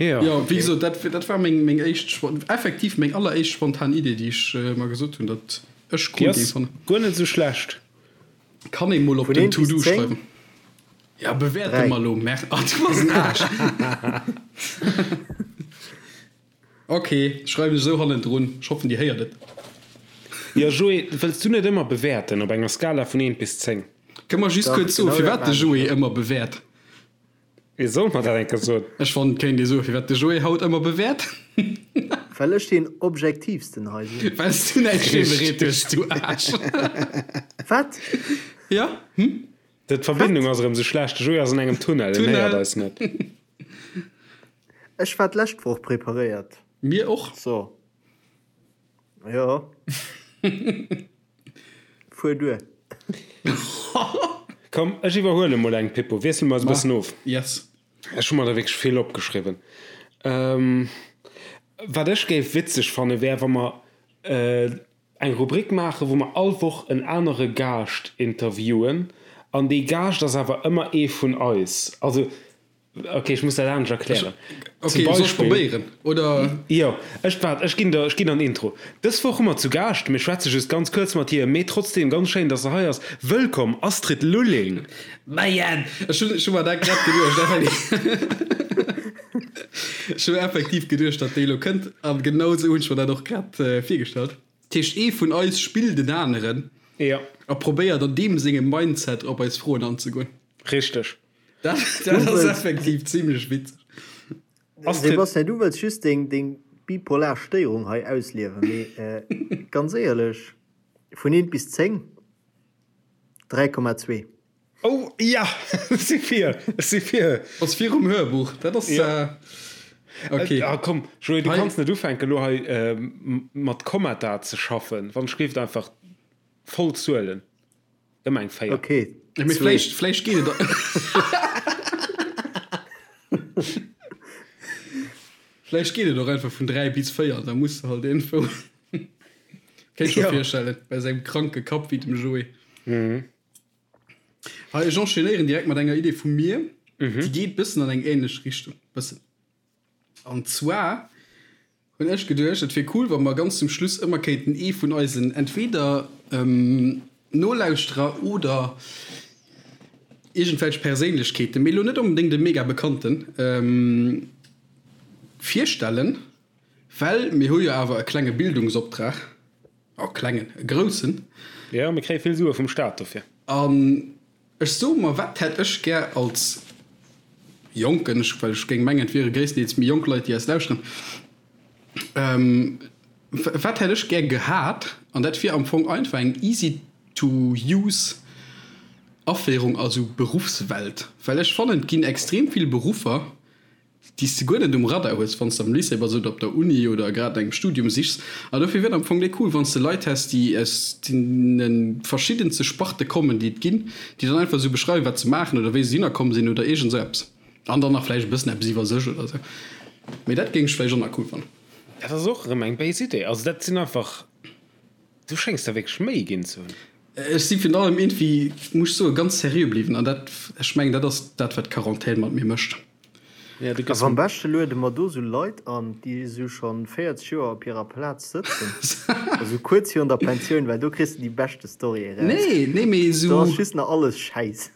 Jo. Jo, wéi gesot, dat, dat war meng, meng éischt, effektiv meng alleréischt spontan Idee, déi ech mer gesot hunn, datt ech cool géing fannen. Déi ass guer net esou schlecht. Kann ee mol op den To-Do schreiwen. Ja, bewäerte mer lo. Mer ah, du bass en Aarsch. Ok, schreiwen ech esou hannendrun. Ech hoffen, Dir héiert et. Jo, Joé, wëlls du net ëmmer bewäerten op enger Skala vun 1 bis 10? Kënne mer just kuerz soen, firwat de Joé ëmmer bewäert? Ee soll mer dat eng Kéier soen. Ech fannen, et kéint ee soen, firwat de Joé haut ëmmer bewäert. Well ech deen objektiivsten hei sinn. Well s du näischt virbereet hues, du Aarsch. Wat? Jo, hm? D'Verbindung ass erëm sou schlecht. De Joé ass an engem Tunnel, en héiert eis net. Ech war d'lescht Woch preparéiert. Mir och. So. Jo. Fuer duer. Komm, ech iwwerhuele mol eng, Pippo. Wiessele mer eis e bëssen of. Yes. Ech hu mer der wierklech vill opgeschriwwen. Wat ech géif witzeg fanne wär, wa mer eng Rubrik maachen, wou mer all Woch en anere Gaascht interviewen an dee Gaascht ass awer ëmmer ee vun eis. Also, ok, ech muss dat anescht erklären. Ok, soll ech probéieren, oder? Jo, ech, waart, ech ginn der, ech ginn der en Intro. Dës Woch hu mer zu Gaascht, mir schwätze just ganz kuerz mat hir, mee trotzdeem ganz schéin, dass se hei ass, Wëllkomm, Astrid Lulling! Majen! Ech hunn, ech hu mer dat grad geduecht, effektiv. Ech hu effektiv geduecht, datt déi elo kënnt, an genau esou hunn ech mer dat och grad virgestallt. Dat heescht, ee vun eis spillt en aneren a probéiert an deem sengem Mindset op eis Froen anzegoen. Richteg. Dat, dat ass effektiv zimlech witzeg. Sebastian, du wëlls just deng, deng bipolar Stéierung hei ausliewen, mee ganz éierlech, vun eent bis 10, 3,2. Oh ja, ech si fir, ech si fir. Ass virum Hörbuch, dat ass ok. Ah komm Joé, du kanns net ufänken elo hei mat Kommata ze schaffen, wann ech géif einfach voll Zuelen, ëmmer eng 4. Ok, Mee vläicht, vläicht geet et. Vläicht geet et och einfach vun 3 bis 4, da muss de halt iergendwou. Kéint ech mer virstellen, bei sengem kranke Kapp wéi dem Joé. Hei, ech enchaînéieren direkt mat enger Idee vu mir, déi geet bëssen an eng ähnlech Richtung, bëssen. An zwar Hunn ech geduecht, et wier cool, wa mer ganz zum Schluss ëmmer kéinten ee vun eisen entweder Nolauschterer oder iergendwelch Perséinlechkeeten, mee elo net onbedéngt e mega bekannten, virstellen, well mir hu jo awer e klenge Bildungsoptrag, oh klengen, e groussen. Jo, mir kréie vill Sue vum Staat dofir. An Ech soe mer, wat hätt ech gär als Jonken, ech, well ech géing mengen, et wiere gréisstendeels méi jonk Leit, déi eis lauschteren, wat hätt ech gär gehat? An dat wier am Fong einfach eng easy to use Aféierung a sou Beruffswelt. Well ech fannen, et ginn extrem vill Beruffer, déi s de guer net um Radar hues, wann s de am Lycée bass oder op der Uni oder grad no engem Studium sichs. An dofir wier et am Fong déi cool, wann s de Leit häss, déi aus deene verschiddenste Sparte kommen, déi et ginn, déi dann einfach esou beschreiwen, wat se maachen oder wéi se dohinner komm sinn oder iergend esou eppes. An dann nach vläicht e bëssen eppes iwwer sech oder esou. Mee dat géing ech vläicht och nach cool fannen. Dat ass och erëm eng béis Idee. Also dat sinn einfach, du schéngs der wierklech Méi ginn ze hunn. Ech si virun allem iergendwéi, muss ech soen, ganz seriö bliwwen. An dat, ech mengen, dat ass dat, wat d'Quarantän mat mir mécht. Ja, du gëss. Am beschte luede mer do sou Leit an, déi sou schonn 40 Joer op hirer Plaz sëtzen, esou kuerz virun der Pensioun, well do kriss de déi beschte Storyen eraus. Nee, nee, mee Do ass sou. just nach alles Schäiss.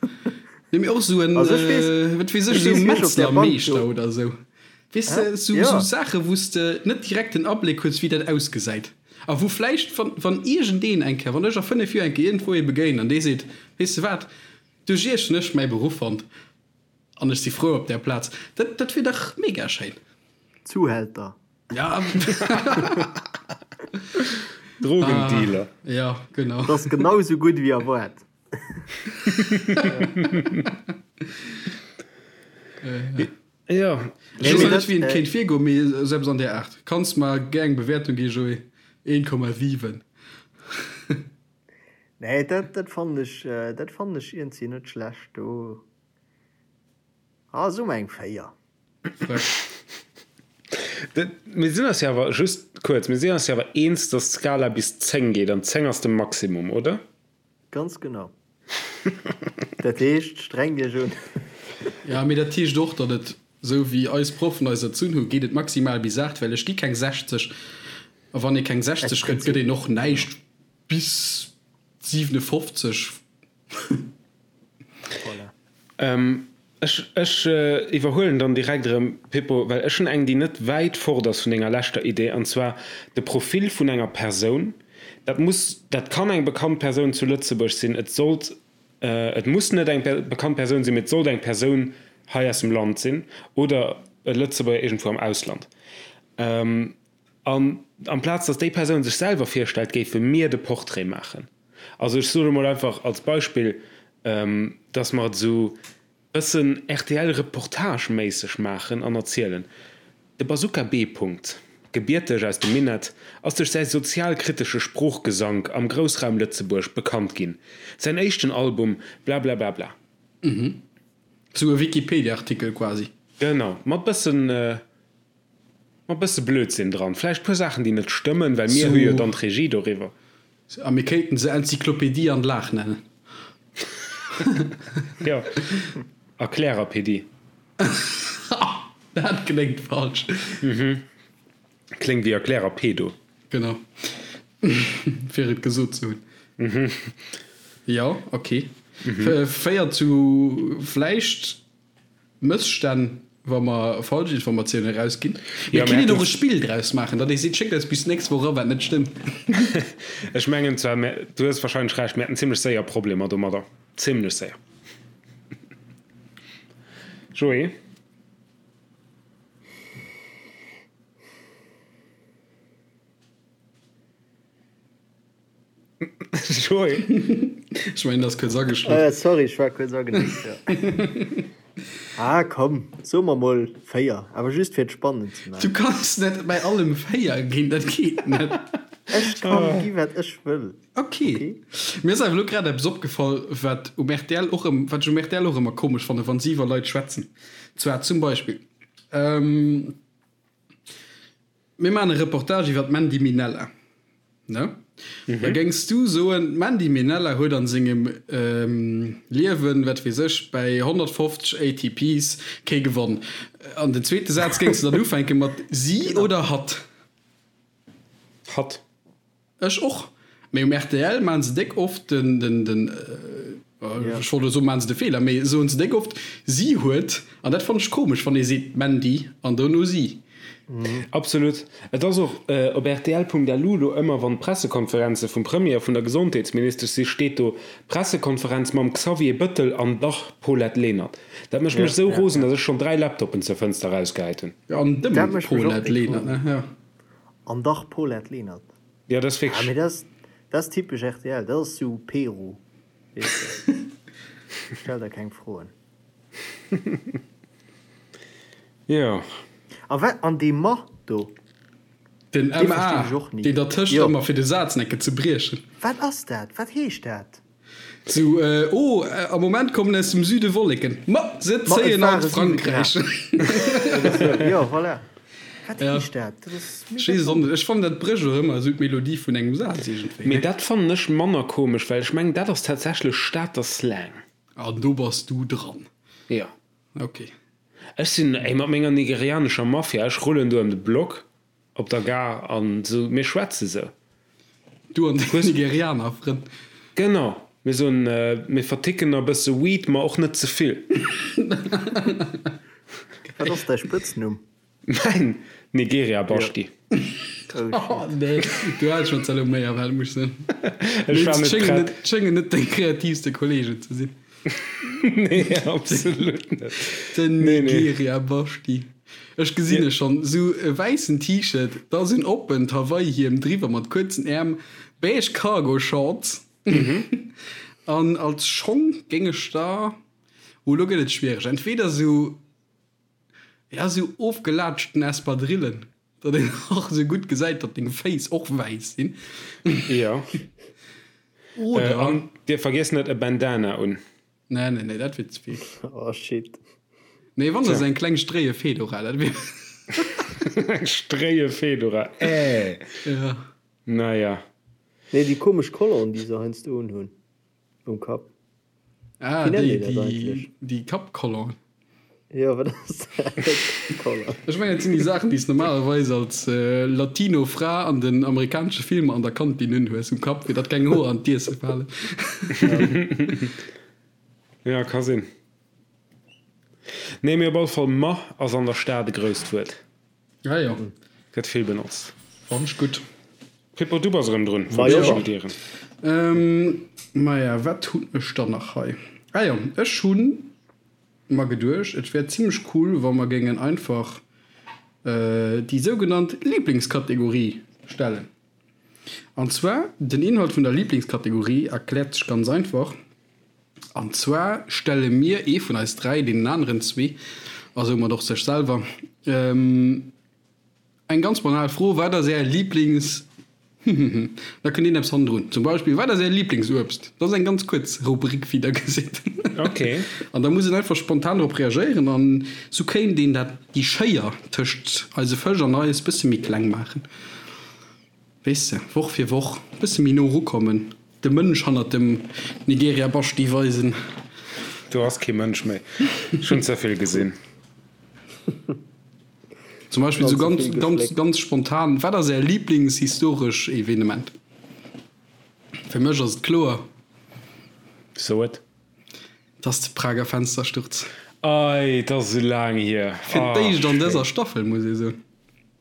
Nee, mee och sou en, Also ech weess, wat weess ech, ech sou weess, wéi ech op där Bank do. Metzlermeeschter oder sou. Weess de, sou, sou Saache wou s de net direkt den Abléck hues, wéi dat ausgesäit. A wou vläicht, wann, wann iergendeen eng Kéier, wann ech a 5 Joer eng Kéier iergendwou ee begéinen an dee seet, Weess de wat, duerch iech hunn ech mäi Beruff fonnt. An ech si frou op där Plaz. Dat, dat wier dach mega schéin. Zuhälter. Ja. Drogendealer. Ah, ja, genau. Dat ass genau esou gutt wéi erwaart. Ja. Ech weess net, wéi een kéint virgoen, mee esou eppes an där Aart. Kanns mer gär eng Bewäertung ginn, Joé? 1,7. Nee, dat, dat fannen ech, dat fannen ech iergendwéi net schlecht do. Ah, so eng 4. Frech. Mir sinn eis jo awer, just kuerz, mir sinn eis jo awer eens, dass d'Skala bis 10 geet an 10 ass de Maximum, oder? Ganz genau. Dat heescht, streng Iech un. Ja, mee dat heescht och, datt et, esou wéi eis Proffen eis erzunn hunn, geet et maximal bis 8, well ech gi keng 60. A wann ee keng 60 gëtt, gëtt een och näischt bis 57. Voilà. Ech, ech iwwerhuelen dann direkt erëm, Pippo, well ech hunn eng, déi net wäit fort ass vun denger leschter Idee, an zwar de Profil vun enger Persoun. Dat muss, dat kann eng bekannt Persoun zu Lëtzebuerg sinn, et sollt, et muss net eng bekannt Persoun sinn, mee et sollt eng Persoun hei aus dem Land sinn oder e Lëtzebuerger iergendwou am Ausland. An amplaz datt déi Persoun sech selwer virstellt, géife mir de Portrait maachen. Also ech soe mol einfach als Beispill, datt mer et esou bëssen RTL-Reportage-méisseg maachen an erzielen. De Bazooka B. Punkt, gebierteg aus dem Minett, ass duerch säi sozialkritesche Sproochgesank am Groussraum Lëtzebuerg bekannt ginn. Säin éischten Album Blablablabla. Esou e Wikipedia-Artikel quasi. Genau, mat bëssen. Mat bësse Blödsinn dran. Vläicht puer Saachen déi net stëmmen, well mir hu jo dann d'Regie doriwwer. A mir kéinten se Enzyklopedie an Lag nennen. Jo, Erklärerpedie. Dat kléngt falsch. Kléngt wéi Erklärerpedo. Genau. Fir et gesot ze hunn. Jo, ok. Féiert zu vläicht Mësstänn, wa mer falsch Informatiounen erausginn. Mir kënnen och e Spill draus maachen, datt ee seet, Schéckt eis bis d'nächst Woch era wat net stëmmt. Ech mengen zwar, mä du hues wahrscheinlech Recht, mir hätten zimlech séier Problemer domadder. Zimlech séier. Joé? Joé. Ech mengen, ass kuerz ageschlof. Äh, sorry, ech war kuerz agenickt, jo. Ah, komm, soe mer mol 4, awer just fir et spannend ze Du maachen. kanns net bei allem 4 ginn, dat geet net. Ech kann gi wat ech wëll, Ok. okay? Mir ass awer elo grad eppes opgefall, wat um rtl och ëm, wat ech um rtl och ëmmer komesch fannen, wann si iwwer Leit schwätzen. Zwar zum Beispill, ähm, Mir maachen e Reportage iwwer d'Mandy Minella, ne? Da géings du soen, d'Mandy Minella huet an sengem Liewen, wat weess ech, bäi 150 ATPs kee gewonn. An den zweete Saz géings du dann ufänke mat si oder hatt. Hatt. Ech och. Mee um rtl maan se déck oft den, den, den, ech wollt elo soen, maan se de Feeler, mee soen se déck oft si huet, an dat fannen ech komesch, wann ee seet d'Mandy an dono si. Absolut. Et ass och op rtl.lu lo ëmmer, wann d'Pressekonferenze vum Premier a vun der Gesondheetsministesch si, steet do Pressekonferenz mam Xavier Bëttel an dach Paulette Lenert. Dat mécht mech esou rosen, datt ech schonn 3 Laptoppen zur Fënster erausgehäit hunn. An dem Paulette Lenert, ne? Jo. An dach Paulette Lenert. Jo, dat ass wierklech. Ah, mee dat ass, dat ass typesch rtl, dat ass sou Peru, weess de. Stell der keng Froen. Jo. A wat, an dee Ma do? Den MA, verstinn ech och ni. deen dertëscht Jo. ëmmer fir de Saz necke ze briechen. Wat ass dat? Wat heescht dat? Sou, oh, am Moment kommen aus dem Süde Wolleken. Ma se Ma et zéien ware an 7 Frankräich. Grad. Oder sou. Jo, voilà. Wat Ja. heescht dat? Dat ass Ech mega weess et och komesch. net. Ech fannen, dat brécht och ëmmer esou d'Melodie vun engem Saz iergendwéi, Mee ne? dat fannen ech manner komesch, well ech mengen, dat ass tatsächlech Stater Slang. An do bass du dran. Jo. Ok. Ech sinn, ey, mat menger nigerianescher Mafia, ech rullen do ëm de Block op der Gare an esou, mir schwätze sou. Du an deng Nigerianer Frënn. Genau, mir soen, mir verticken e bësse Weed, ma och net ze vill. Wat ass däi Spëtznumm? Mäin Nigeria Baschti. Oh nee, du häls schonn Zalomé a wat muss sinn. Ech war net prett. Et schéngen net deng kreativste Kollegen ze sinn. Nee, absolut net. Den Nee, nee. Nigeria Baschti. Ech gesinn e schonn, sou e wäissen T-Shirt, da sou en oppent Hawaii-Hiem driwwer mat kuerzen Äerm, beige Cargo-Shorts an als Schong géing ech da, oh lo gëtt et schwiereg, entweder sou Ja, sou ofgelaatschten Espadrillen, datt een och sou gutt gesäit, datt deng Féiss och wäiss sinn. Jo. Oder. An dir vergiesst net e Bandana un. Nee, nee, nee, dat wier ze vill. Oh shit. Nee, wann da sou eng kleng stréie Fedora, dat wier. Eng stréie Fedora, äh. Ja. Naja. Nee, déi komesch Colonne, déi se heiansdo unhunn um Kapp. Ah, Wéi nennt déi, een dat déi, eigentlech? déi Kappcolonne. Jo, wat ass dat? Kappcolonne. Ech mengen, dat sinn déi Saachen, déi s normalerweis als Latino Fra an den amerikanesche Filmer an der Kantin unhues um Kapp, fir datt keng Hoer an d'Iesse falen. Ja, ka sinn. Nee, mee op alle Fall, ma ass an der Stad e grousst Wuert. Ah jo. Gëtt vill benotzt. Fannen ech gutt. Pippo, du bass erëm drun. Majo. Verabschiedieren. Maja, wat hunn ech dann nach hei? Ah jo, ech hunn mer geduecht, et wär zimlech cool, wa mer géingen einfach déi sougenannt Lieblingskategorie stellen. An zwar, den Inhalt vun der Lieblingskategorie erkläert sech ganz einfach. An zwar stelle mir, ee vun eis 3, deenen aneren zwee, a soumat och sech selwer, eng ganz banal Fro, Wat ass Är Lieblings. Da kënnt een eppes hannendrun. Zum Beispill, Wat ass Är Lieblingsuebst? Dat ass eng ganz kuerz Rubrik, wéi Der gesitt. Okay. An da muss een einfach spontan drop reagéieren an sou kéint een dat, déi Schéier tëscht eise Fësch an eis, bësse méi kleng maachen. Weess de, Woch fir Woch e bësse méi no erukommen, de Mënsch hannert dem Nigeria Baschti weisen. Do ass kee Mënsch méi. Ech hunn ze vill gesinn. Zum Beispill sou ganz, ganz, ganz spontan, Wat ass Är Lieblingshistoresch Evenement? Fir mech ass et kloer. So et. Et ass de Prager Fenstersturz. Ei, et ass esou laang hier. Fir d'éischt an dëser Staffel, muss ee soen.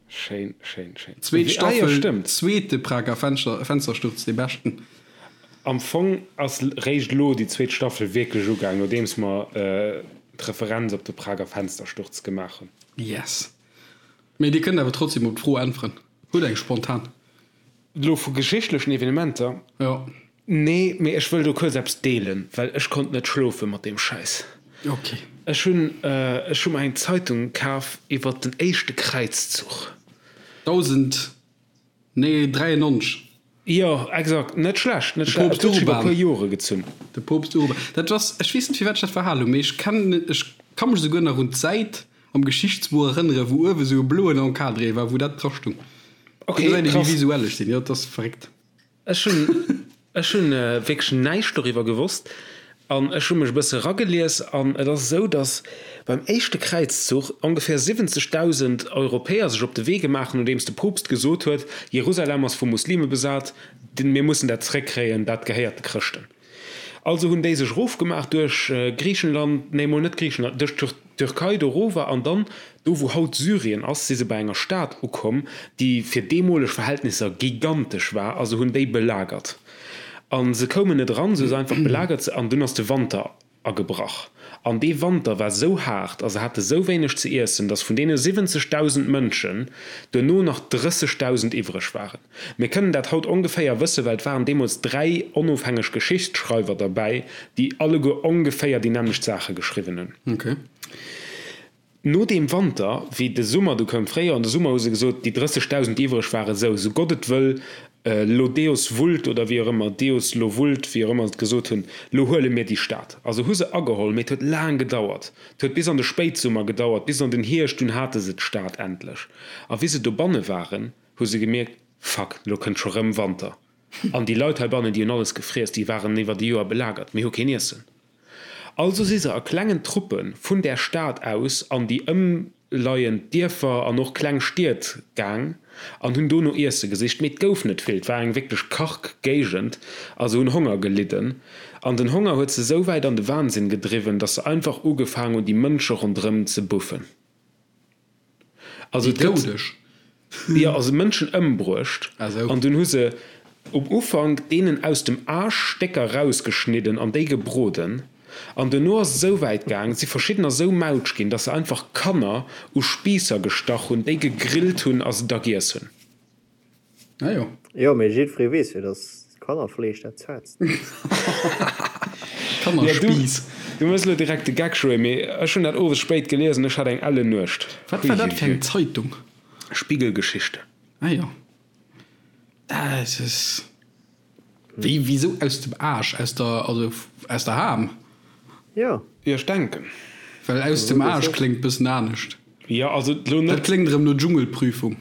Schéin, schéin, schéin. Zweet Ah jo, Staffel, stëmmt. zweete Prager Fenster, Fenstersturz, dee beschten. Am Fong ass réischt elo déi zweet Staffel wierklech ugaang, nodeems mer d'Referenz op de Prager Fenstersturz gemaach hunn. Yes. Mee dir kënnt awer trotzdem op d'Fro äntweren. Hutt eng spontan. Elo vu geschichtlechen Evenementer? Jo. Nee, mee ech wëll do kuerz eppes deelen, well ech konnt net schlofe mat deem Schäiss. Ok. Ech hunn, ech hu mer eng Zeitung kaf iwwert den éischte Kräizzuch. 1093. Jo, exakt. Net schlecht, net De schlecht. Poopst Et huet sech iwwer e Urban. puer Jore gezunn. De Poopst Urban. Dat ass, ech weess net firwat ech dat verhal hunn, mee ech kennen, ech ka mech esouguer nach un d'Säit am Geschichtsbuch erënneren, wou uewe sou e bloen Encadré war, wou dat dra stung. Ok, Do gesäit ee wéi krass. visuell ech sinn. Jo, dat ass verréckt. Ech hunn, ech hunn wierklech näischt doriwwer gewosst. An ech hu mech e bësse ragelies an et ass esou, datt beim éischte Kräizzuch ongeféier 70.000 Europäer sech op de Wee gemaach hunn, nodeems de Poopst gesot huet, Jerusalem ass vu Muslime besat, mir mussen dat zeréckkréien, dat gehéiert de Chrëschten. Also hunn déi sech erofgemaach duerch Griichenland, nee mol net Griichenland, duerch d'Türkei do erower an dann do wou haut Syrien ass, si se bei enger Stad ukomm, déi fir deemoleg Verhältnisser gigantesch war a se hunn déi belagert. A se koumen net eran, se hu se einfach belagert an dunn ass de Wanter agebrach. An dee Wanter war sou haart a se hate sou wéineg ze iessen, datt vun deene 70.000 Mënschen duerno nach 30.000 iwwreg waren. Mir kënnen dat haut ongeféier wëssen, well et waren deemools 3 onofhängeg Geschichtsschreiwer derbäi, déi alleguer ongeféier déi nämmlecht Saache geschriwwen hunn. No deem Wanter, wéi de Summer du koum, Fréijoer an de Summer, hu se gesot, déi 30.000, déi iwwreg waren, sou, sou Gott et wëll, lo Deus vult oder wéi och ëmmer, Deus lo vult, wéi och ëmmer se et gesot hunn, lo huele mir déi Stad. A se hu se ageholl, mee et huet laang gedauert. Et huet bis an de Spéitsummer gedauert, bis an den Hierscht, dunn hate se d'Stad endlech. A wéi se dobanne waren, hu se gemierkt, Fuck, lo kënnt scho rëm Wanter. An déi Leit heibannen, déi hunn alles gefriess, déi waren iwwer e Joer belagert, mir hu keen Iessen. Also si se a klengen Truppe vun där Stad aus an déi ëmleiend Dierfer an och kleng Stied gaang an hunn do no Iesse gesicht. Mee et gouf net vill, et war eng wierklech karg Géigend a se hunn Honger gelidden. An den Honger huet se sou wäit an de Wahnsinn gedriwwen, datt se einfach ugefaang hunn, déi Mënsche ronderëm ze buffen. Also Déi Doudeg? Jo, also Mënschen ëmbruecht. Ah sou. An dunn hu se um Ufank deenen aus dem Aarsch Stécker rausgeschnidden an déi gebroden. An duerno ass et esou wäit gaang, et si verschiddener esou mautsch ginn, dass se einfach Kanner u Spiisser gestach hunn, déi gegrillt hunn a se da giess hunn. Ah jo. Jo, mee jiddweree weess jo, dass Kannerfleesch dat zaartst ass. Kannerspiiss. Du méchs elo direkt de Geck, Joé, mee ech hunn dat owes spéit gelies an ech hat eng ellen Nuecht. Wat war dat fir eng Zeitung? Spiegel-Geschichte. Ah jo. Dat ass. Wéi, wisou aus dem Aasch? Aus der, also aus der Ham? Jo. Jo, ech denken. Well aus dem Aasch kléngt bëssen anescht. Jo, also lo net. Dat kléngt erëm no Dschungelprüfung.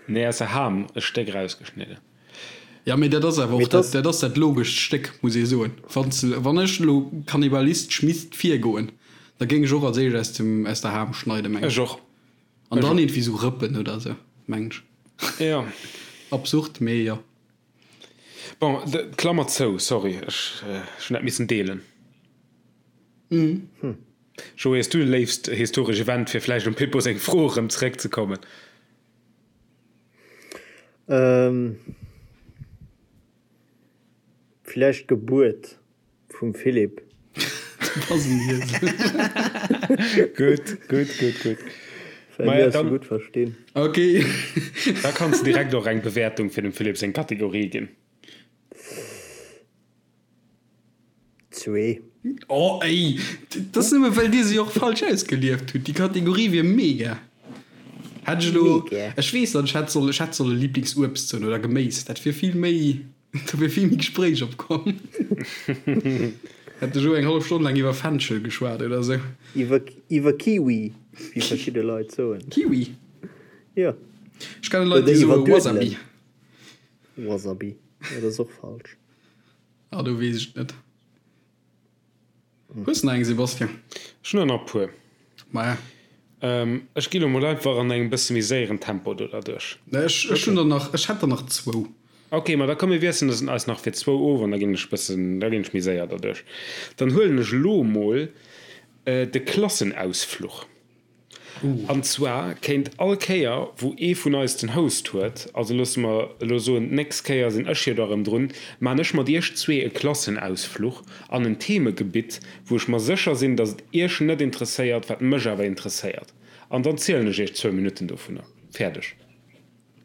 Nee, aus der Ham e Stéck rausgeschnidden. Jo, mee dat ass awer och dat, dat ass dat logescht Stéck, muss ee soen. Wann s, wann ech elo kannibalistesch misst virgoen, da géing ech och als éischt aus dem, aus der Ham schneiden, meng ech. Ech och. An dann iergendwéi sou Rëppen oder sou, mengen ech. Jo. Absurd, mee jo. Bon, Klammer zou, sorry, ech hunn dat missen deelen. Joé, hues du e léifst historesch Event, fir vläicht um Pippo seng Fro erëm zeréckzekommen? Vläicht d'Gebuert vum Philippe. Du bass en Iesel. Gutt, gutt, gutt, gutt. Well mir eis sou gutt verstinn. Ok. Da kanns de direkt och eng Bewäertung fir dem Philippe seng Kategorie ginn. Zwee. Oh ey, dat ass nëmme well dir se och falsch ausgelieft hutt. Déi Kategorie wier mega. Hätt ech elo, ech weess net, ech hätt solle, ech hätt solle Lieblingsuebst soen oder Geméis, dat wier vill méi. Do wier vill méi Gespréich opkomm. Hätt de Joe eng hallef Stonn laang iwwer Fenchel geschwat oder sou. Iwwer, iwwer Kiwi, wéi verschidde Leit soen. Kiwi? Jo. Ech kenne Leit, déi soe Wasabi. Wasabi, jo, dat ass och falsch. Ah, do weess ech et net. Hues de nach eng, Sebastian? Ech hunn der nach e puer. Maja. Ech gi lo mol einfach an engem bësse méi séieren Tempo do derduerch. Ech ech hunn der nach, ech hätt der nach zwou. Ok, ma da komm mir wiesselen es eis nach fir zwou of an da ginn ech bëssen, da ginn ech méi séier derduerch. Dann huelen ech lo mol de Klassenausfluch. An zwar kéint all Kéier, wou ee vun eis den Host huet, also loosse mer elo soen, d'nächst Kéier sinn ech jo da erëm drun, maan ech mat iech zwee e Klassenausfluch an en Themegebitt, wou ech mer sécher sinn, dass et iech net interesséiert, wat mech awer interesséiert. An dann zielen ech iech zwou Minutten dovunner. Fäerdeg.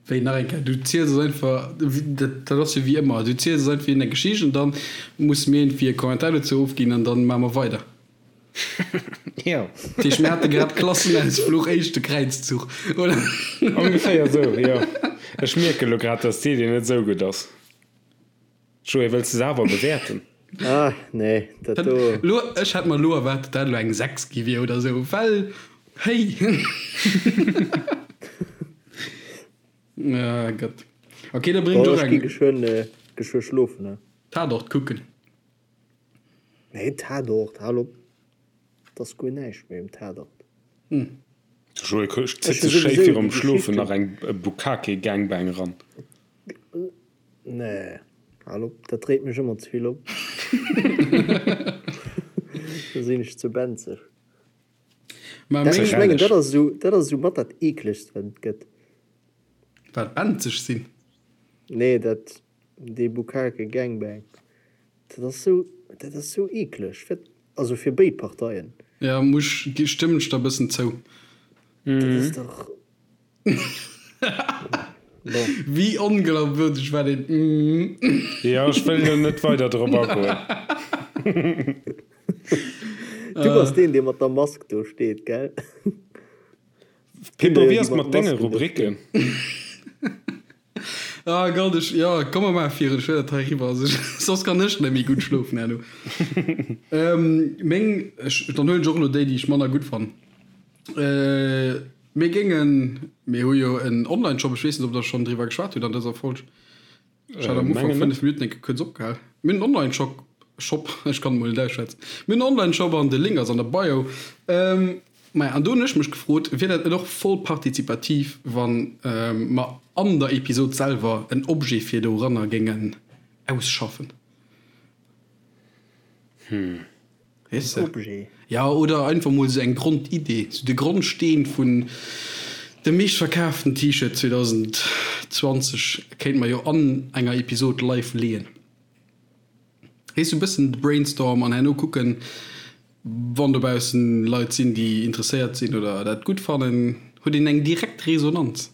Wéi, nach eng Kéier, du ziels eis einfach, dat ass jo wéi ëmmer, du ziels eis einfach eng Geschicht an dann musse mir iergendwéi e Kommentar dozou ofginn an dann maache mer weider. Jo. Dat heescht, mir hate grad Klassenausfluch, éischte Kräizzuch, oder? Ongeféier esou, jo. Ech mierken elo grad, dass d'Idee net esou gutt ass. Joé, wëlls de se awer bewäerten? Ah, nee, dat do. Lo, ech hätt mer elo erwaart, datt dat elo eng 6 gi wier oder esou, well, hey! Ah Gott. Ok, da bréng ech och eng. Ech gi geschwënn, geschwë schlofen, ne? Tatort kucken. Nee, Tatort, hal op, et ass guer näischt méi um Tatort. De Joé zitt sech schéi virum Schlofen nach eng Bukkake-Gangbang ran. Nee, hal op, dat dréit mech ëmmer ze vill op. Da sinn ech ze benzeg. Ech mengen, dat ass esou, dat ass esou mat dat eeklegst, wat et gëtt. Wat, benzeg sinn? Nee, dat, dee Bukkake Gangbang. Dat ass sou, dat ass sou eekleg, fir, also fir béid Parteien. Ja, muss, stëmmen ech der e bëssen zou. Dat ass dach, bon. Wéi onglaubwürdeg war deen mm? Jo, ech wëll elo net weider drop agoen. Du bass deen, dee mat der Mask do steet, gell? Pippo, wéi ass et mat denge Rubriken? Ah Gott, ech, jo, komm mer maache virun, ech wëll dat hei eriwwer, also soss kann ech net méi gutt schlofen herno. Meng, ech, dann huelen ech och elo déi, déi ech manner gutt fannen. Mir géingen, mir hu jo en Online-Shop, ech weess net, ob der schonn driwwer geschwat hutt an dëser Folg. Ech hat am Ufank 5 Minutten enke kuerz opgehal. Mir hunn en Online-Shop, Shop, ech kann emol net ausschwätzen. Mir hunn en Online-Shop an de Link ass an der Bio. Maja, an do hunn ech mech gefrot, wier dat net och voll partizipativ, wann mer an der Episod selwer en Objet fir doranner géingen ausschaffen? Weess de? Objet. Ja, oder einfach mol sou eng Grondidee, sou de Grondsteen vun dem meeschtverkaaften T-Shirt 2020 kéint mer jo an enger Episod live leeën. Weess, sou e bëssen de Brainstorm an herno kucken, wann dobaussen Leit sinn, déi interesséiert sinn oder dat gutt fannen, huet een eng direkt Resonanz.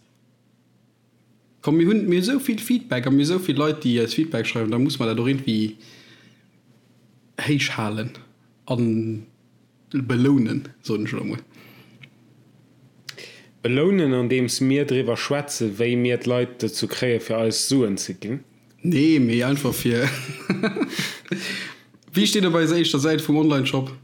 Komm mir hunn mir hu sou vill Feedback a mir hu sou vill Leit déi eis Feedback schreiwen, da muss mer dat och iergendwéi héich halen a belounen, soen ech elo emol. Belounen andeems mir driwwer schwätzen, wéi mir d'Leit dozou kréie fir eis Suen ze ginn? Nee, mee einfach fir, wéi steet op eiser éischter Säit vum Onlineshop?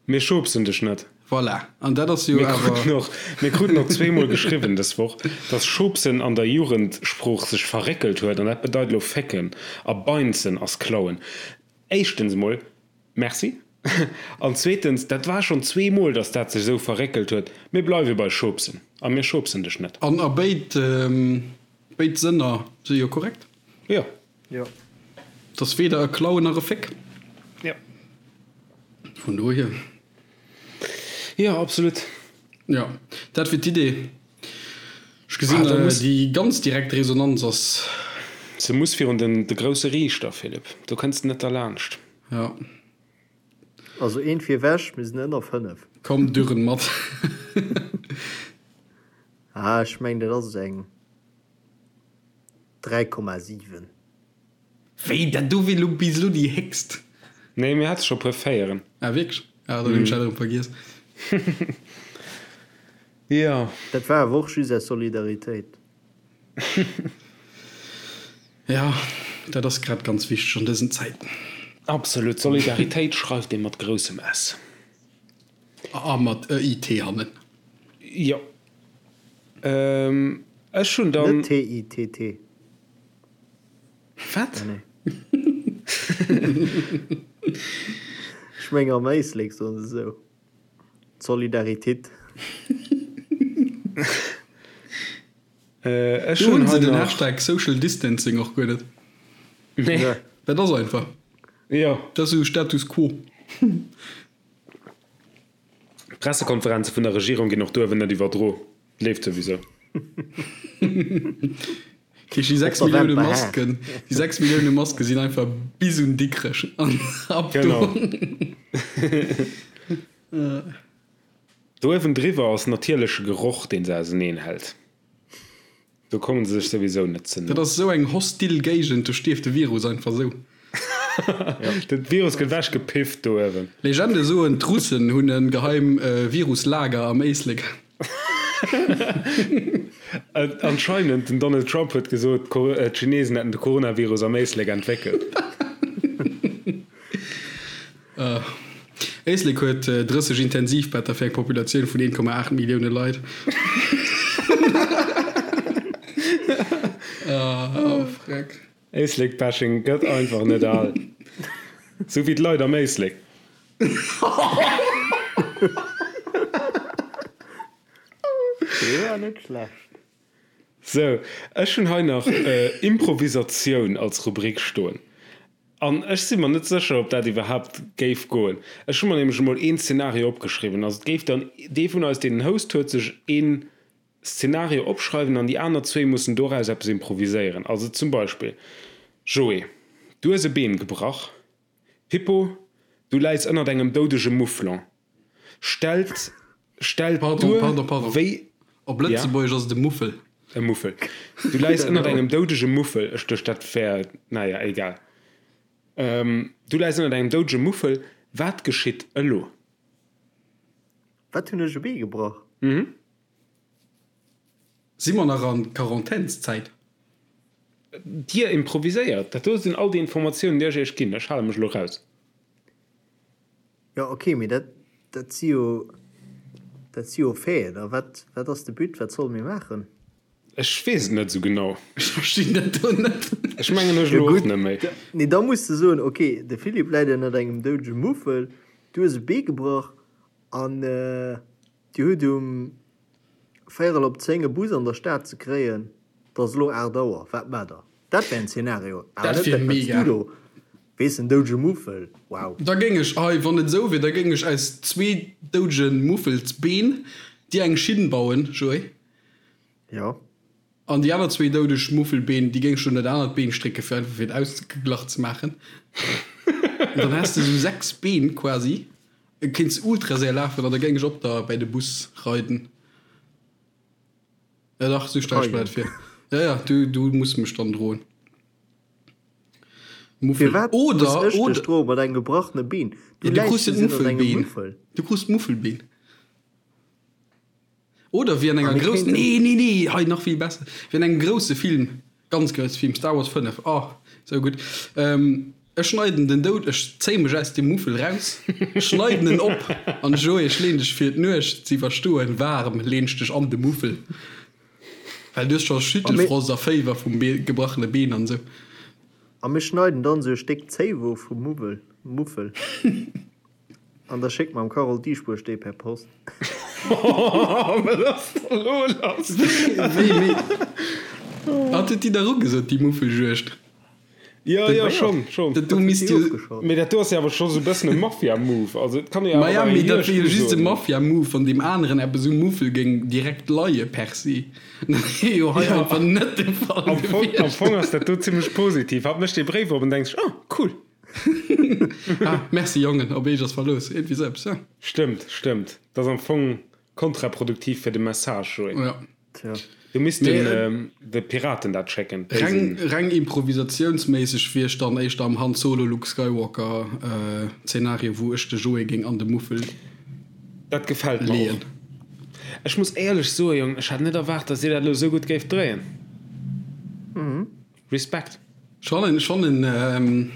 Mir schubsen dech net. Voilà, an dat ass jo Mir kruten awer. och, mir kruten och zweemol geschriwwen dës Woch, dass schubsen an der Jugendsprooch sech verréckelt huet an dat bedeit elo fécken a beinzen ass klauen. Éischtens emol, Merci. An zweetens, dat war schonn zweemol, dass dat sech esou verréckelt huet. Mir bleiwe bei schubsen a mir schubsen dech net. An a béid, béid Sënner si jo korrekt. Jo. Jo. Et ass weder e Klauen nach e Féck. Jo. Vun dohier. Jo, absolut. Jo, dat wier d'Idee. Ech gesinn, déi ganz direkt Resonanz ass. Se muss virun den de grousse Riichter, Philippe. Do kënns de net derlaanscht. Jo. Also eent fir ewech, mir sinn ënner 5. Komm, dürren mat. Ah, ech mengen, dat ass eng. 3,7. Wéi, dat do wier lo bis elo déi héchst? Nee, mir hate scho puer Véieren. Ah wierklech? Ah, dann hunn ech dat erëm vergiess. Jo. Dat war awer och just aus Solidaritéit. Jo, dat ass grad ganz wichteg an dësen Zäiten. Absolut, Solidaritéit schreift ee mat groussem S. A mat e I T hannen. Jo. Ech hunn dann. Net T-I-T-T. Wat? Ah nee. Ech meng am Éislek soen se esou. D'Solidaritit. Ech Do hunn hunn se hei den nach. Hashtag Social Distancing och guer net. Nee. Dat ass einfach. Jo. Dat ass esou Status quo. D'Pressekonferenze vun der Regierung ginn och do ewen net iwwerdro. Leeft souwisou. Déi 6 Millioune Masken, déi 6 Millioune Maske sinn einfach bis un Dikrech an ab do. Genau. Do ewendriwwer ass natierleche Geroch, deen se auseneen hält. Do kommen se sech souwisou net ze no. Dat ass esou eng hostil Géigend, do stierft de Virus einfach esou. De Virus gëtt ewech gepifft do uewen. Legende soen, d'Russen hunn e geheim Viruslager am Éislek. Anscheinend, den Donald Trump huet gesot, d'Chinesen hätten de Coronavirus am Éislek entwéckelt. Éislek huet 30 Intensivbetter fir eng Populatioun vun 1,8 Millioune Leit. Oh freck. Éislek-Bashing gëtt einfach net al. Sou wéi d'Leit am Éislek. Dee war net schlecht. Sou, ech hunn hei nach Improvisatioun als Rubrik stoen. An ech si mer net sécher, ob dat iwwerhaapt géif goen. Ech hu mer nämlech emol een Szenario opgeschriwwen. Also et géif dann dee vun eis, deen den Host huet, sech een Szenario opschreiwen an déi aner zwéi mussen doraus eppes improviséieren. Also zum Beispill, Joé, du hues e Been gebrach. Pippo, du läis ënnert engem doudege Mouflon. Stellt, stellt Pardon, duer, pardon, pardon. wéi. Op Ja? Lëtzebuergesch ass et e Muffel. E Muffel. Du läis ënnert engem doudege Muffel. Ech duecht, dat wär, naja, egal. Du läis ënnert engem doudege Muffel. Wat geschitt elo? Wat hunn ech e Bee gebrach? Mhm. Si mer nach an Quarantänszäit? Dir improviséiert. Dat do sinn all déi Informatiounen, déi ech iech ginn. Ech hale mech elo raus. Jo, ok, mee dat, dat si jo, dat si jo Faiten. A wat, wat ass de But? Wat solle mir maachen? Ech weess et net esou genau. Ech verstinn dat do net. Ech mengen ech Jo elo och gutt, net méi. nee, da muss de soen, ok, de Philippe läit ënnert engem doudege Muffel, du hues e Bee gebrach an dir hutt um véierel op 10 e Bus an der Stad ze kréien, et ass elo 8 Auer, wat maacht der? Dat wär en Szenario, awer Dat net wier dat, wat s mega. du do weess, en doudege Muffel, wow. Da géing ech, hei, wann et esou wier, da géing ech aus zwee doudege Muffelsbeen dir eng Schinn bauen, Joé. Jo. An déi aner zwee doudeg Muffelbeen, déi géing ech un dat anert Been strécken, fir einfach fir et ausgeglach ze maachen. An dann häss de esou 6 Been quasi. Kéints ultra séier lafen an da géing ech op der bäi de Bus reiden. Ja dach, esou stell ech mer dat Reiden. vir. Ja, ja, du, du muss mech dann droen. Muffel. Firwat muss Oder, ech dech oder. droen mat engem gebrachene Been? Du Ja, du läis krus jo just ënnert engem d'Muffelbeen. Muffel. Du krus d'Muffelbeen. Oder wéi an A enger mir groussen, kéinten. nee, nee, nee, hei nach vill besser, wéi an engem grousse Film, ganz grousse Film, Star Wars 5, oh, sou gutt, ech schneiden den Doud, ech zéie mech aus dem Muffel raus, schneiden en op an Joé, ech leen dech fir d'Nuecht ze iwwerstoen, waarm, leen ech dech an de Muffel, well du hues scho A mir. Schüttelfrost a Féiwer vum gebrachene Been an sou. A mir schneiden dann sou e Stéck Zéiwo vum Muwwel, Muffel. An da schéckt mer dem Carole Dieschbourg déi per Post. Wat ass da lo lass? Wéi, wéi? Hat huet déi dach ugesot, déi Muffeljuegd? Jo, jo, schonn, schonn. Dat do misst jo. Mee dat do ass jo awer scho sou e bëssen e Mafia-Move. Also et kann ee jo awer Maja, bei mee enger dat wier jo Juegd just e usoen. Mafia-Move, wann deem aneren eppes um Muffel géing direkt leie per se. Dat wier jo hei Jo, einfach net de Fall am Fong, am gewiescht. Fong ass dat do zimmlech positiv. Hatt mécht dee Bréif op an denkt sech, Oh, cool. Ah, merci Jongen, op eech ass Verlooss, iergendwéi sou eppes, ja. Stëmmt, stëmmt. Dat ass am Fong kontraproduktiv fir de Message, Joé. Ja. Tja. Du misst Mee den, de Piraten dat schécken, déi reng, sinn. reng improvisatiounsméisseg wier ech dann éischter am Han Solo Luke Skywalker Zenario, wou ech de Joé géing an de Muffel Dat gefält mer och. leeën. Ech muss éierlech soen, Jong, ech hat net erwaart, dass dir dat elo sou gutt géift dréien. Respekt. Ech fannen, ech fannen.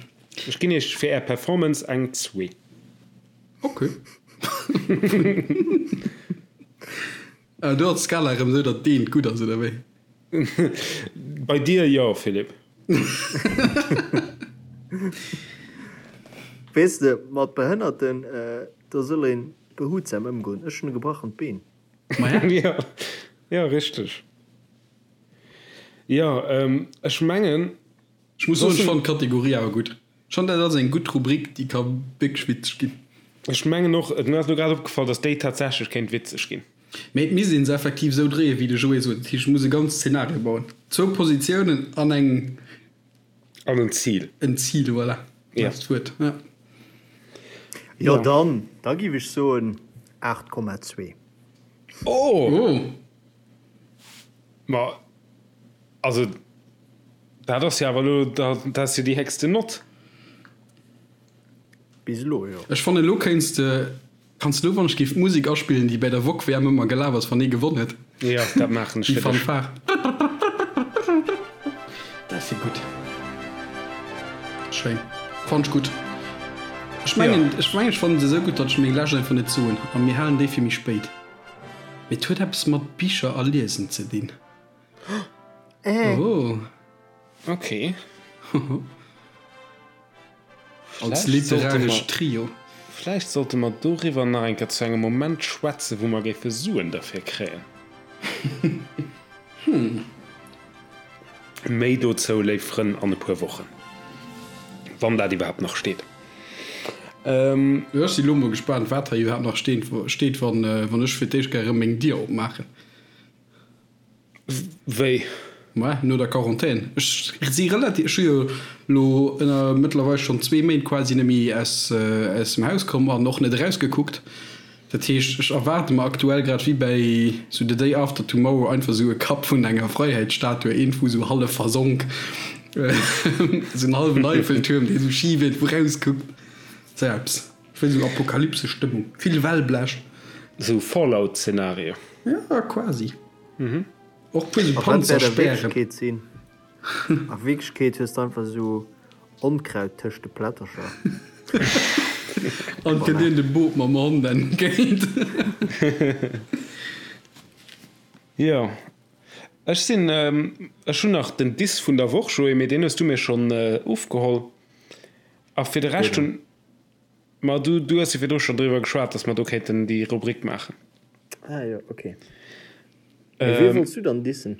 Ech ginn iech fir är Performance eng zwee. Ok. Do ass d'Skala erëm esou, datt d'Eent gutt ass, oder wéi? Bei dir jo, Philippe. Weess de, mat Behënnerten, do soll ee behutsam ëmgoen. Ech hunn e gebrachent Been. Maja. Jo, jo, richteg. Jo, ech mengen. Ech muss soen, ech fannen d'Kategorie awer gutt. Ech fannen, dat ass eng gutt Rubrik, déi ka wierklech witzeg ginn. Ech mengen och, et mir ass elo grad opgefall, datt déi tatsächlech kéint witzeg ginn. Mee et misst een se effektiv esou dréien, wéi de Joé sot. Dat heescht, et muss e ganzt Szenario bauen. Zwou Positiounen an eng. An en Zil. En Zil, voilà. Ja. Dat ass d'Wuert, ja. Jo, dann, da giff ech soen 8,2. Oh! Oh! Ma also dat ass jo awer elo, dat ass jo déi héchsten Nott. Bis elo, jo. Ech fannen elo kéints de, kanns de elo wann ech géif d'Musek aspillen déi bäi der Wok WM ëmmer gelaf ass wann ee gewonn huet. Jo, dat maachen ech Déi fir dech. Fanfare. Dat wier gutt. Schéin. Fannt ech gutt. Ech mengen, ech mengen ech fannen se esou gutt, datt ech meng lescht einfach net soen a mir halen déi fir méi spéit. Mee et huet eppes mat Bicher a Liesen ze dinn. Oh. Ok. Als literarescht Trio. Vläicht sollte mer doriwwer nach eng Kéier zu engem Moment schwätzen, wou mer géife Suen derfir kréien. Méi dozou, léif Frënn, an e puer Wochen, wann dat iwwerhaapt nach steet. Ech si lo mol gespaant, wat hei iwwerhaapt nach steet, wann ech fir d'éischt gär erëm meng Dier opmaachen. Wéi? Mä no der Quarantän. Ech si relativ, ech hu jo lo ënner mëttlerweil schonn zwee Méint quasi net méi aus aus dem Haus komm an och net erausgekuckt. Dat heescht, ech erwaarde mer aktuell grad wéi bäi sou The Day After Tomorrow einfach sou e Kapp vun enger Freiheitsstatue, eent wou sou hallef versonk, sou en hallwen Eiffeltuerm, dee sou schif iergendwou rauskuckt. Sou eppes. Ech wëll sou Apokalypse-Stëmmung, vill Wellblech. Sou Fallout-Szenario. Ja, quasi. Och puer sou Panzerspären. A Wierklechkeet hues de einfach sou Onkraut tëscht de Plättercher. An kënnt een dem Boot mam Hond entgéint. Jo, ech sinn, ech hunn nach den Diss vun der Woch, Joé, mee deen hues du mir schonn ofgeholl. A fir de Rescht hunn. Ma du, du hues jo virdru schonn driwwer geschwat, dass mer do kéinten déi Rubrik maachen. Ah jo, okay. Mee wee wollts du dann dissen?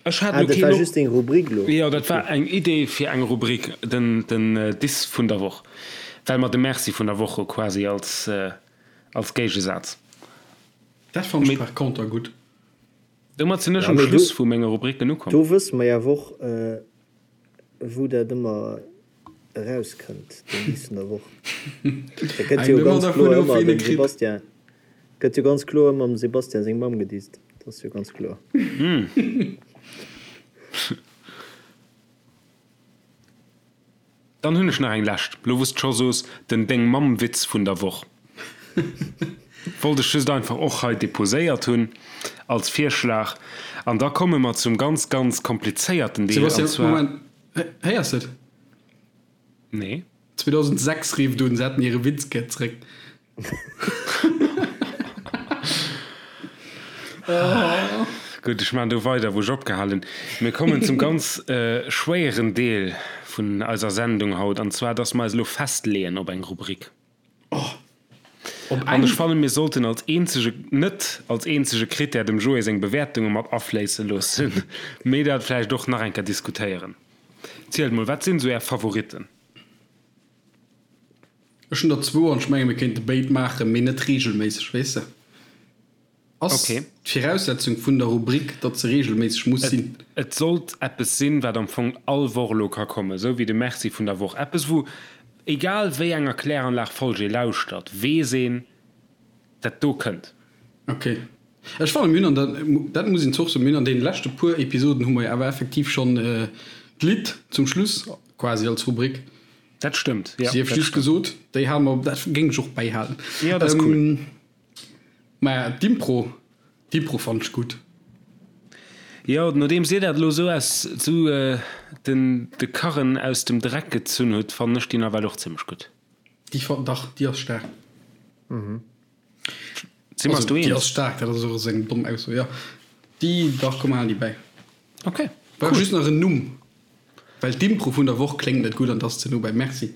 Ech hat Ah, elo dat keen war op. just deng Rubrik elo. Jo, dat war eng Idee fir eng Rubrik, den, den Diss vun der Woch, well mer de Merci vun der Woch hu quasi als, als Géigesaz. Dat fannen ech par conter gutt. Domat sinn ech Ja, um mee do, Schluss vu menge Rubriken ukomm. do wësse mer jo awer och, wou dat ëmmer erauskënnt, den Diss vun der Woch. Dat gëtt jo ganz kloer ëmmer dem Sebastian, gëtt jo ganz kloer ëmmer dem Sebastian seng Mamm gedisst. Dat ass jo ganz kloer. Dann hunn ech nach eng lescht, lo wou s de scho soos, den Deng-Mamm-Witz vun der Woch. Wollt ech just einfach och hei deposéiert hunn als Virschlag. An da komme mer zum ganz, ganz komplizéierten Deel, an Sebastian, zwar. Moment, héiers de et? Nee. 2006 rifft un, se hätten hire Witz gär zréck. Gutt, ech maachen do weider, wou ech opgehal hunn. Mir kommen zum ganz schwéieren Deel vun eiser Sendung haut, an zwar, dass mer eis elo festleeën op eng Rubrik. Op An eng? ech fannen, mir sollten als eenzege, net als eenzege Krittär dem Joé seng Bewäertunge mat afléisse loossen, mee dat vläicht och nach eng Kéier diskutéieren. Zielt mol, wat sinn esou Är Favoritten? Ech hunn der zwou an ech menge mir kéinte béid maachen, mee net reegelméisseg, weess de. Ass Okay. d'Viraussetzung vun der Rubrik, datt se reegelméisseg muss Et, sinn? et sollt eppes sinn, wat am Fong all Woch elo ka kommen, esou wéi de Merci vun der Woch. Eppes, wou, egal wéi enger Kläranlag-Folg ee lauschtert, weess een, dat do kënnt. Okay. Ech fannen, mir hunn an der, dat muss een zwar och soen, mir hunn an deene leschte puer Episoden hu mer jo awer effektiv schonn d'Lidd zum Schluss quasi als Rubrik. Dat stëmmt, jo. Sief Dat just stëmmt. gesot, déi hale mer, dat géing ech och bäihalen. Jo, dat ass cool. Maja, d'Impro, d'Impro fannen ech gutt. Jo, nodeems dir dat elo esou aus, esou den, de Karren aus dem Dreck gezunn hutt, fannen ech déi nawell och zimlech gutt. Déi fan, dach, déi ass staark. Si mer eis Also, do déi eens? ass staark, dat ass och esou eng domm Ausso, jo. Déi, dach, komm, mer halen déi bäi. Ok, Brauch cool. just nach en Numm, well d'Impro vun der Woch kléngt net gutt an 't ass ze no bei Merci.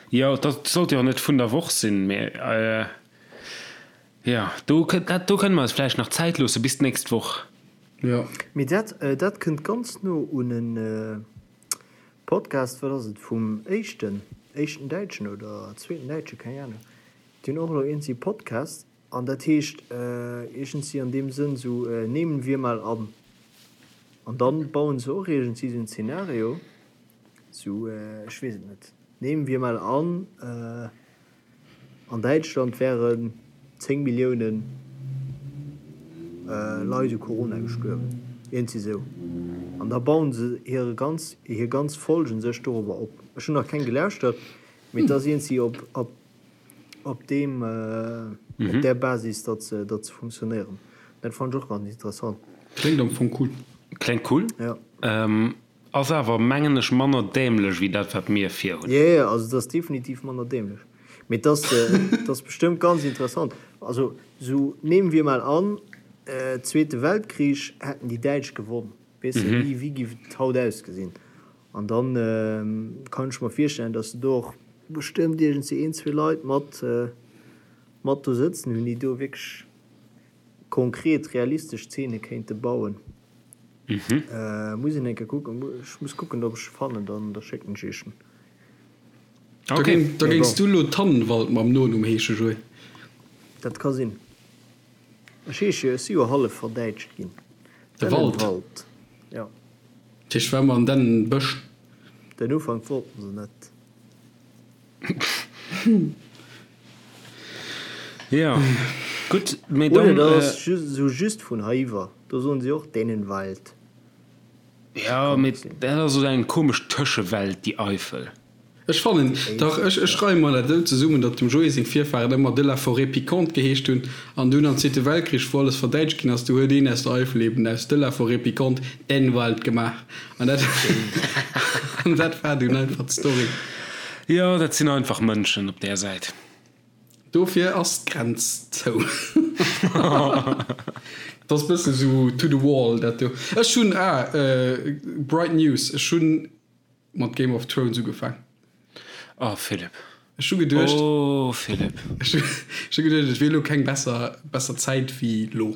Jo, dat sollt jo och net vun der Woch sinn, mee jo, do dat do kënne mer eis vläicht nach Zäit loosse bis d'nächst Woch. Jo. Mee dat dat kënnt ganz no un en Podcast, wat ass et, vum éischten, éischten Däitschen oder zweeten Däitsche, keng Ahnung, déi hunn och elo iergendwéi Podcast An dat heescht iergendsi an deem Sënn esou, nehmen wir mal an. An dann bauen se och iergendsi esou en Zeenario, esou, ech weess et net, nehmen wir mal an, an Däitschland wären 10 Milliounen Leit u Corona gestuerwen, iergendsi esou. An da bauen se hire ganz, hir ganz Folgen sech dorobber op. Ech hunn nach keng gelauschtert, mee et ass iergendsi op, op. op deem op där Basis datt se datt se funktionéieren. Dat fannen ech och ganz interessant. Kléngt am Fong cool. Kléngt cool. Ja. Ass awer mengen ech manner dämlech wéi dat wat mir vir hunn. Jo jo, also et ass definitiv manner dämlech, mee et ass et ass bestëmmt ganz interessant. Also sou nehmen wir mal an, Zweete Weltkrich hätten déi Däitsch gewonn, weess de, wéi wéi giff et haut ausgesinn? An dann kann ech mer virstellen, datt se do och. bestëmmt iergendwéi een, zwee Leit mat, mat do sëtzen hunn, déi do wierklech konkret realistesch Zeene kéinte bauen. Muss een eng Kéier kucken, ech muss kucken, ob ech se fannen, dann da schécken ech iech en. Da géing, da géings du lo Tannenwald mam Nonumm heesche, Joé? Dat ka sinn. Ech heesche jo, ech si jo hallef verdäitscht ginn. De Wald? Dennenwald, jo. Dat heescht, war mer an Dennenbësch. Den Ufank wollten se net. Jo, gutt, mee dann. Oder dat ass just esou just vun heiwwer, do soen si och Dennenwald. Jo, mee dat ass esou eng komesch Tëschewelt, déi Eifel. Ech fannen, dach, ech ech reie mer dat esou zesummen, datt dem Joé seng Virfahren ëmmer de la forêt piquante geheescht hunn, an dunn am Zweete Weltkrich, wou alles verdäitscht ginn ass, du huet een aus der Eifel eben aus de la forêt piquante Dennwald gemaach, an dat an dat war dunn einfach d'Story. Jo, dat sinn einfach Mënschen op där Säit. Dofir ass d'Grenz zou. Dat ass bëssen esou to the wall, dat do. Ech hunn, ah, bright news, ech hunn Mat Game of Thrones ugefaang. Oh Philipp. Ech hu geduecht. Oh Philipp. Ech hu geduecht, et wier elo keng besser besser Zäit wéi lo.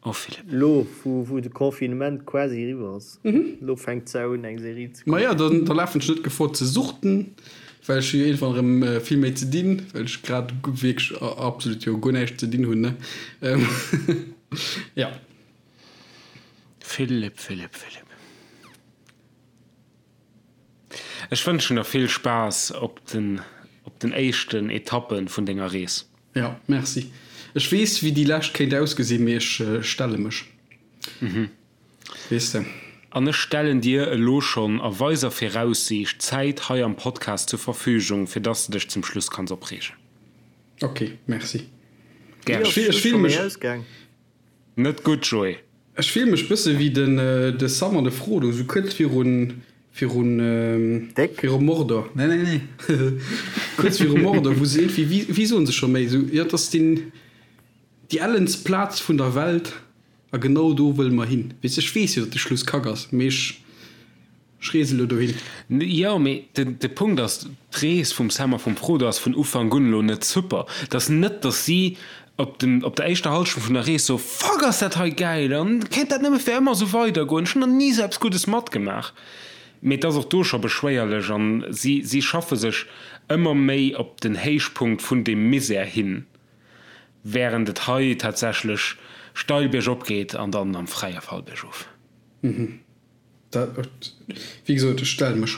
Oh Philipp. Lo wou wou de Confinement quasi eriwwer ass, lo fänkt d'Sau un eng Serie ze kucken. Maja, dann da lafen ech net Gefor ze suchten, well ech hu jo iergendwann erëm vill méi ze dinn, well ech grad wierklech absolut jo guer näischt ze dinn hunn, ne. Ja. Philipp, Philipp, Philipp. Ech wënschen der vill Spaass op den op den éischten Etappen vun denger Rees. Jo, merci. Ech weess wéi déi lescht kéint ausgesinn, mee ech stelle mech, weess de. An ech stellen dir elo schonn a weiser Viraussiicht Zäit hei am Podcast zur Verfügung, fir dass de dech zum Schluss kanns opreegen. Ok, merci. Gären. Ech fille mech. Net gutt, Joé. Ech fill mech bësse wéi den de Sam an de Frodo, sou kuerz virun virun viru Mordor. Nee nee nee kuerz viru Mordor, wou se iergendwéi, wéi wéi soen se scho méi sou, jo et ass den déi ellenst Plaz vun der Welt a genau do wëlle mer hin. Weess ech weess jo datt de Schluss kack ass, mee ech Ech reese lo dohin. Jo, mee de Punkt ass, d'Rees vum Sam a vum Frodo ass vun Ufank un elo net super. Et ass net, datt si op dem, op der éischter Hallschent vun der Rees soen, Fuck, ass dat hei gäil an kéint dat nëmme fir ëmmer esou weidergoen, ech hunn nach ni esou eppes Guddes matgemaach. Mee et ass och do scho beschwéierlech an si, si schaffe sech ëmmer méi op den Héichpunkt vun deem Misär hin, wärend et hei tatsächlech steil biergop geet an dann am fräie Fall biergof. Dat, wéi gesot, ech stelle mech.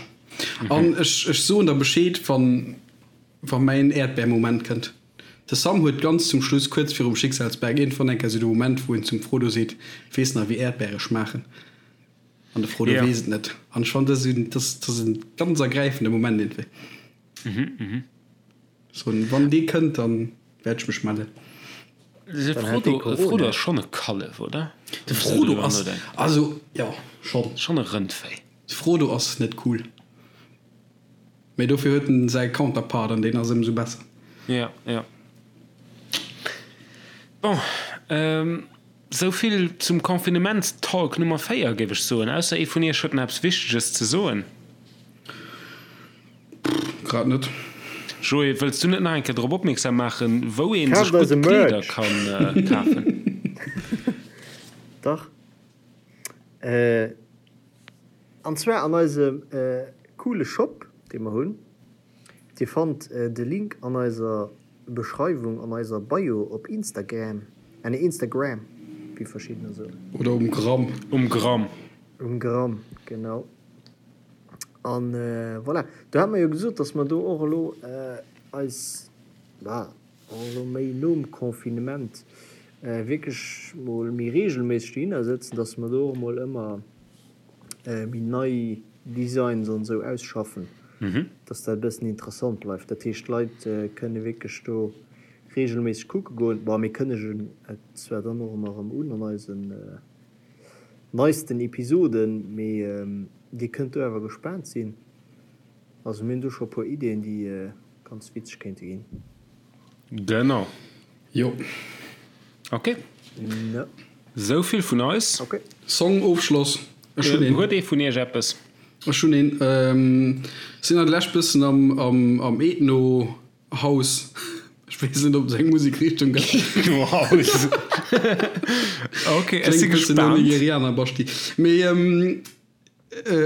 An ech, ech soen der Bescheed, wann, wa mäin Äerdbär-Moment kënnt. De Sam huet ganz zum Schluss, kuerz virum Schicksalsberg, iergendwann eng Kéier esou de Moment, wou en zum Frodo seet, Weess nach, wéi Äerdbäre schmaachen? An de Frodo weess et net. An ech fannen, dat ass esou, dat ass, dat ass e ganz ergräifende Moment iergendwéi. So, wann dee kënnt, dann wäert ech mech mellen. De Frodo, de Frodo ass schonn e Kallef, oder? De Frodo ass, also jo, schonn. Schonn e Rëndvéi. De Frodo ass net cool. Mee dofir huet en säi Counterpart an deen ass ëmsou besser. Jo, jo. Bon, sou vill zum Confinements-Talk Nummer 4, géif ech soen. Ausser ee vun iech huet nach eppes Wichteges ze soen. Grad net. Joé, wëlls du net nach eng Kéier drop opmierksam maachen, wou ee sech gutt Kleeder kann kafen? Dach. An zwar an eisem coole Shop, dee mer hunn. Dir fannt de Link an eiser Beschreiwung, an eiser Bio op Instagram, ah nee Instagram, wéi verschiddener soen. Oder um Gramm. Um Gramm. Um Gramm, genau. An voilà, do hate mer jo gesot, dass mer do och elo eis, bah, och elo méi nom Confinement wierklech mol méi reegelméisseg dohinner sëtzen, dass mer do och mol ëmmer méi nei Designs an esou ausschaffen, dass dat e bëssen interessant bleift. Dat heescht, d'Leit kënne wierklech do reegelméisseg kucke goen. Bon, mir kënnegen et zwar dann och ëmmer erëm un an eisen neisten Episoden, mee dir kënnt do awer gespaant sinn. Also mir hunn do scho puer Ideeën déi ganz witzeg kéinte ginn. Genau. Jo. Ok. Sou vill vun eis. Ok. Song Ofschloss. Ech hunn een. Huet ee vun iech eppes? Ech hunn een, sinn an der Lescht bëssen am am am Ethno House, ech weess net ob et eng Musekrichtung gëtt. Ethno House, ok, ech si Kléngt bëssen no gespaant. Nigerianer Basti, mee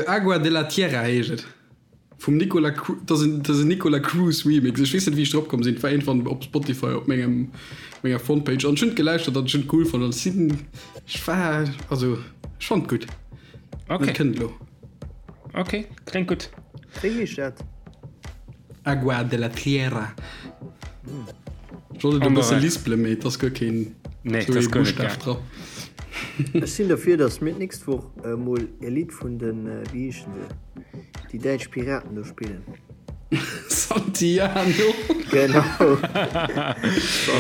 Agua de la Tierra heescht et vum Nicola Cru, dat ass en dat ass en Nicola Cruz Remix. Ech weess net wéi ech drop komm sinn, et war iergendwann op Spotify op mengem menger Frontpage an ech hunn et gelauschtert an ech hunn et cool fonnt an ech sinn ech war also ech fonnt et gutt. Ok. Dat kënnt elo. Ok, kléngt gutt. Wéi heescht dat? Agua de la Tierra. Ech wollt et e bësse lispelen, mee et ass guer keen Nee, dat ass guer net Buschtaf dra. Ech sinn derfir, datt mir d'nächst Woch emol e Lidd vun den, wéi heeschen se, déi däitsch Piraten do spillen. Santiano. Genau.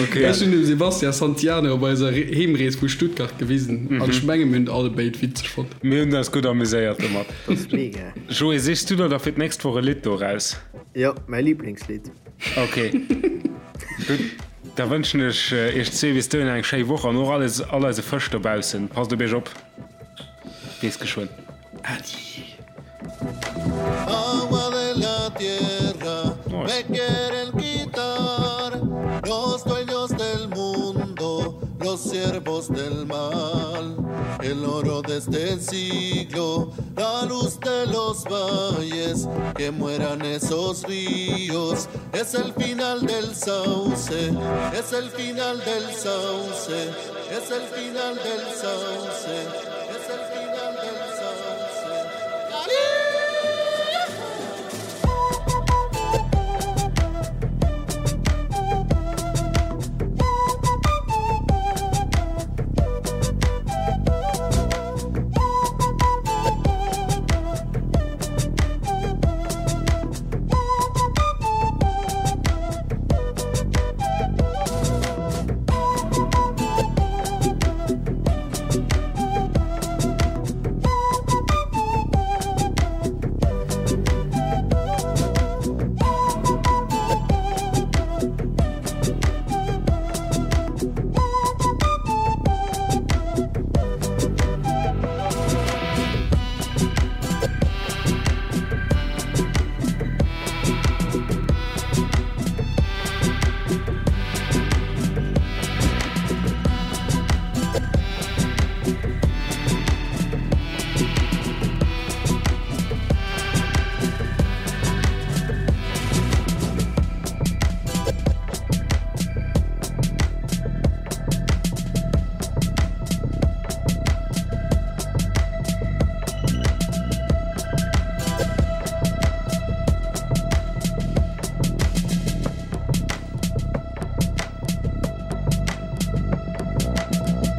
Okay. Ech hunn dem Sebastian Santiano op eiser Heemrees vu Stuttgart gewisen an ech menge mir hunn et alle béid witzeg fonnt. Mir hunn eis gutt amuséiert domat. Dat ass mega. Joé, sichs du der da fir d'nächst Woch e Lidd do raus? Jo, mäi Liblingslidd. Ok. Gutt, da wënschen ech iech zwee bis dohinner eng schéi Woch an och alles, all eise Fësch dobaussen. Passt op iech op. Bis geschwënn. Adi. Es el final del sauce, es el final del sauce.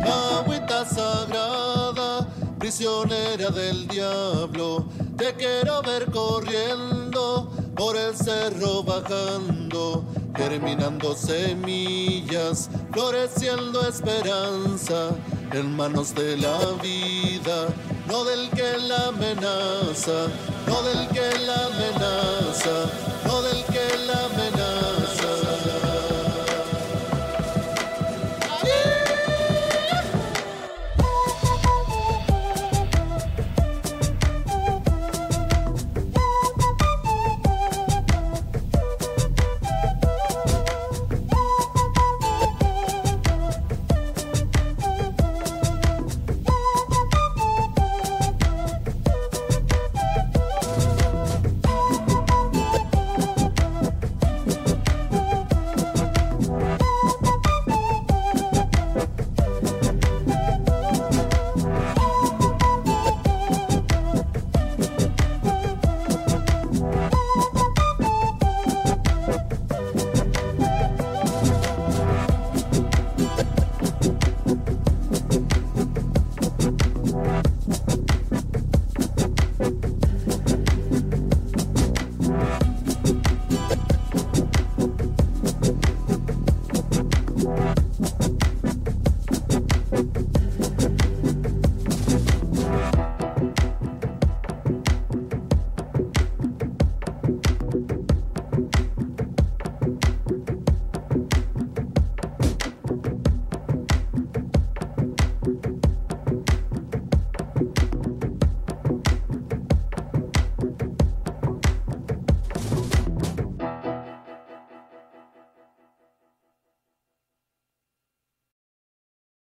Agüita sagrada, prisionera del diablo, te quiero ver corriendo por el cerro bajando, germinando semillas, floreciendo esperanza en manos de la vida, no del que la amenaza, no del que la amenaza, no del que la amenaza.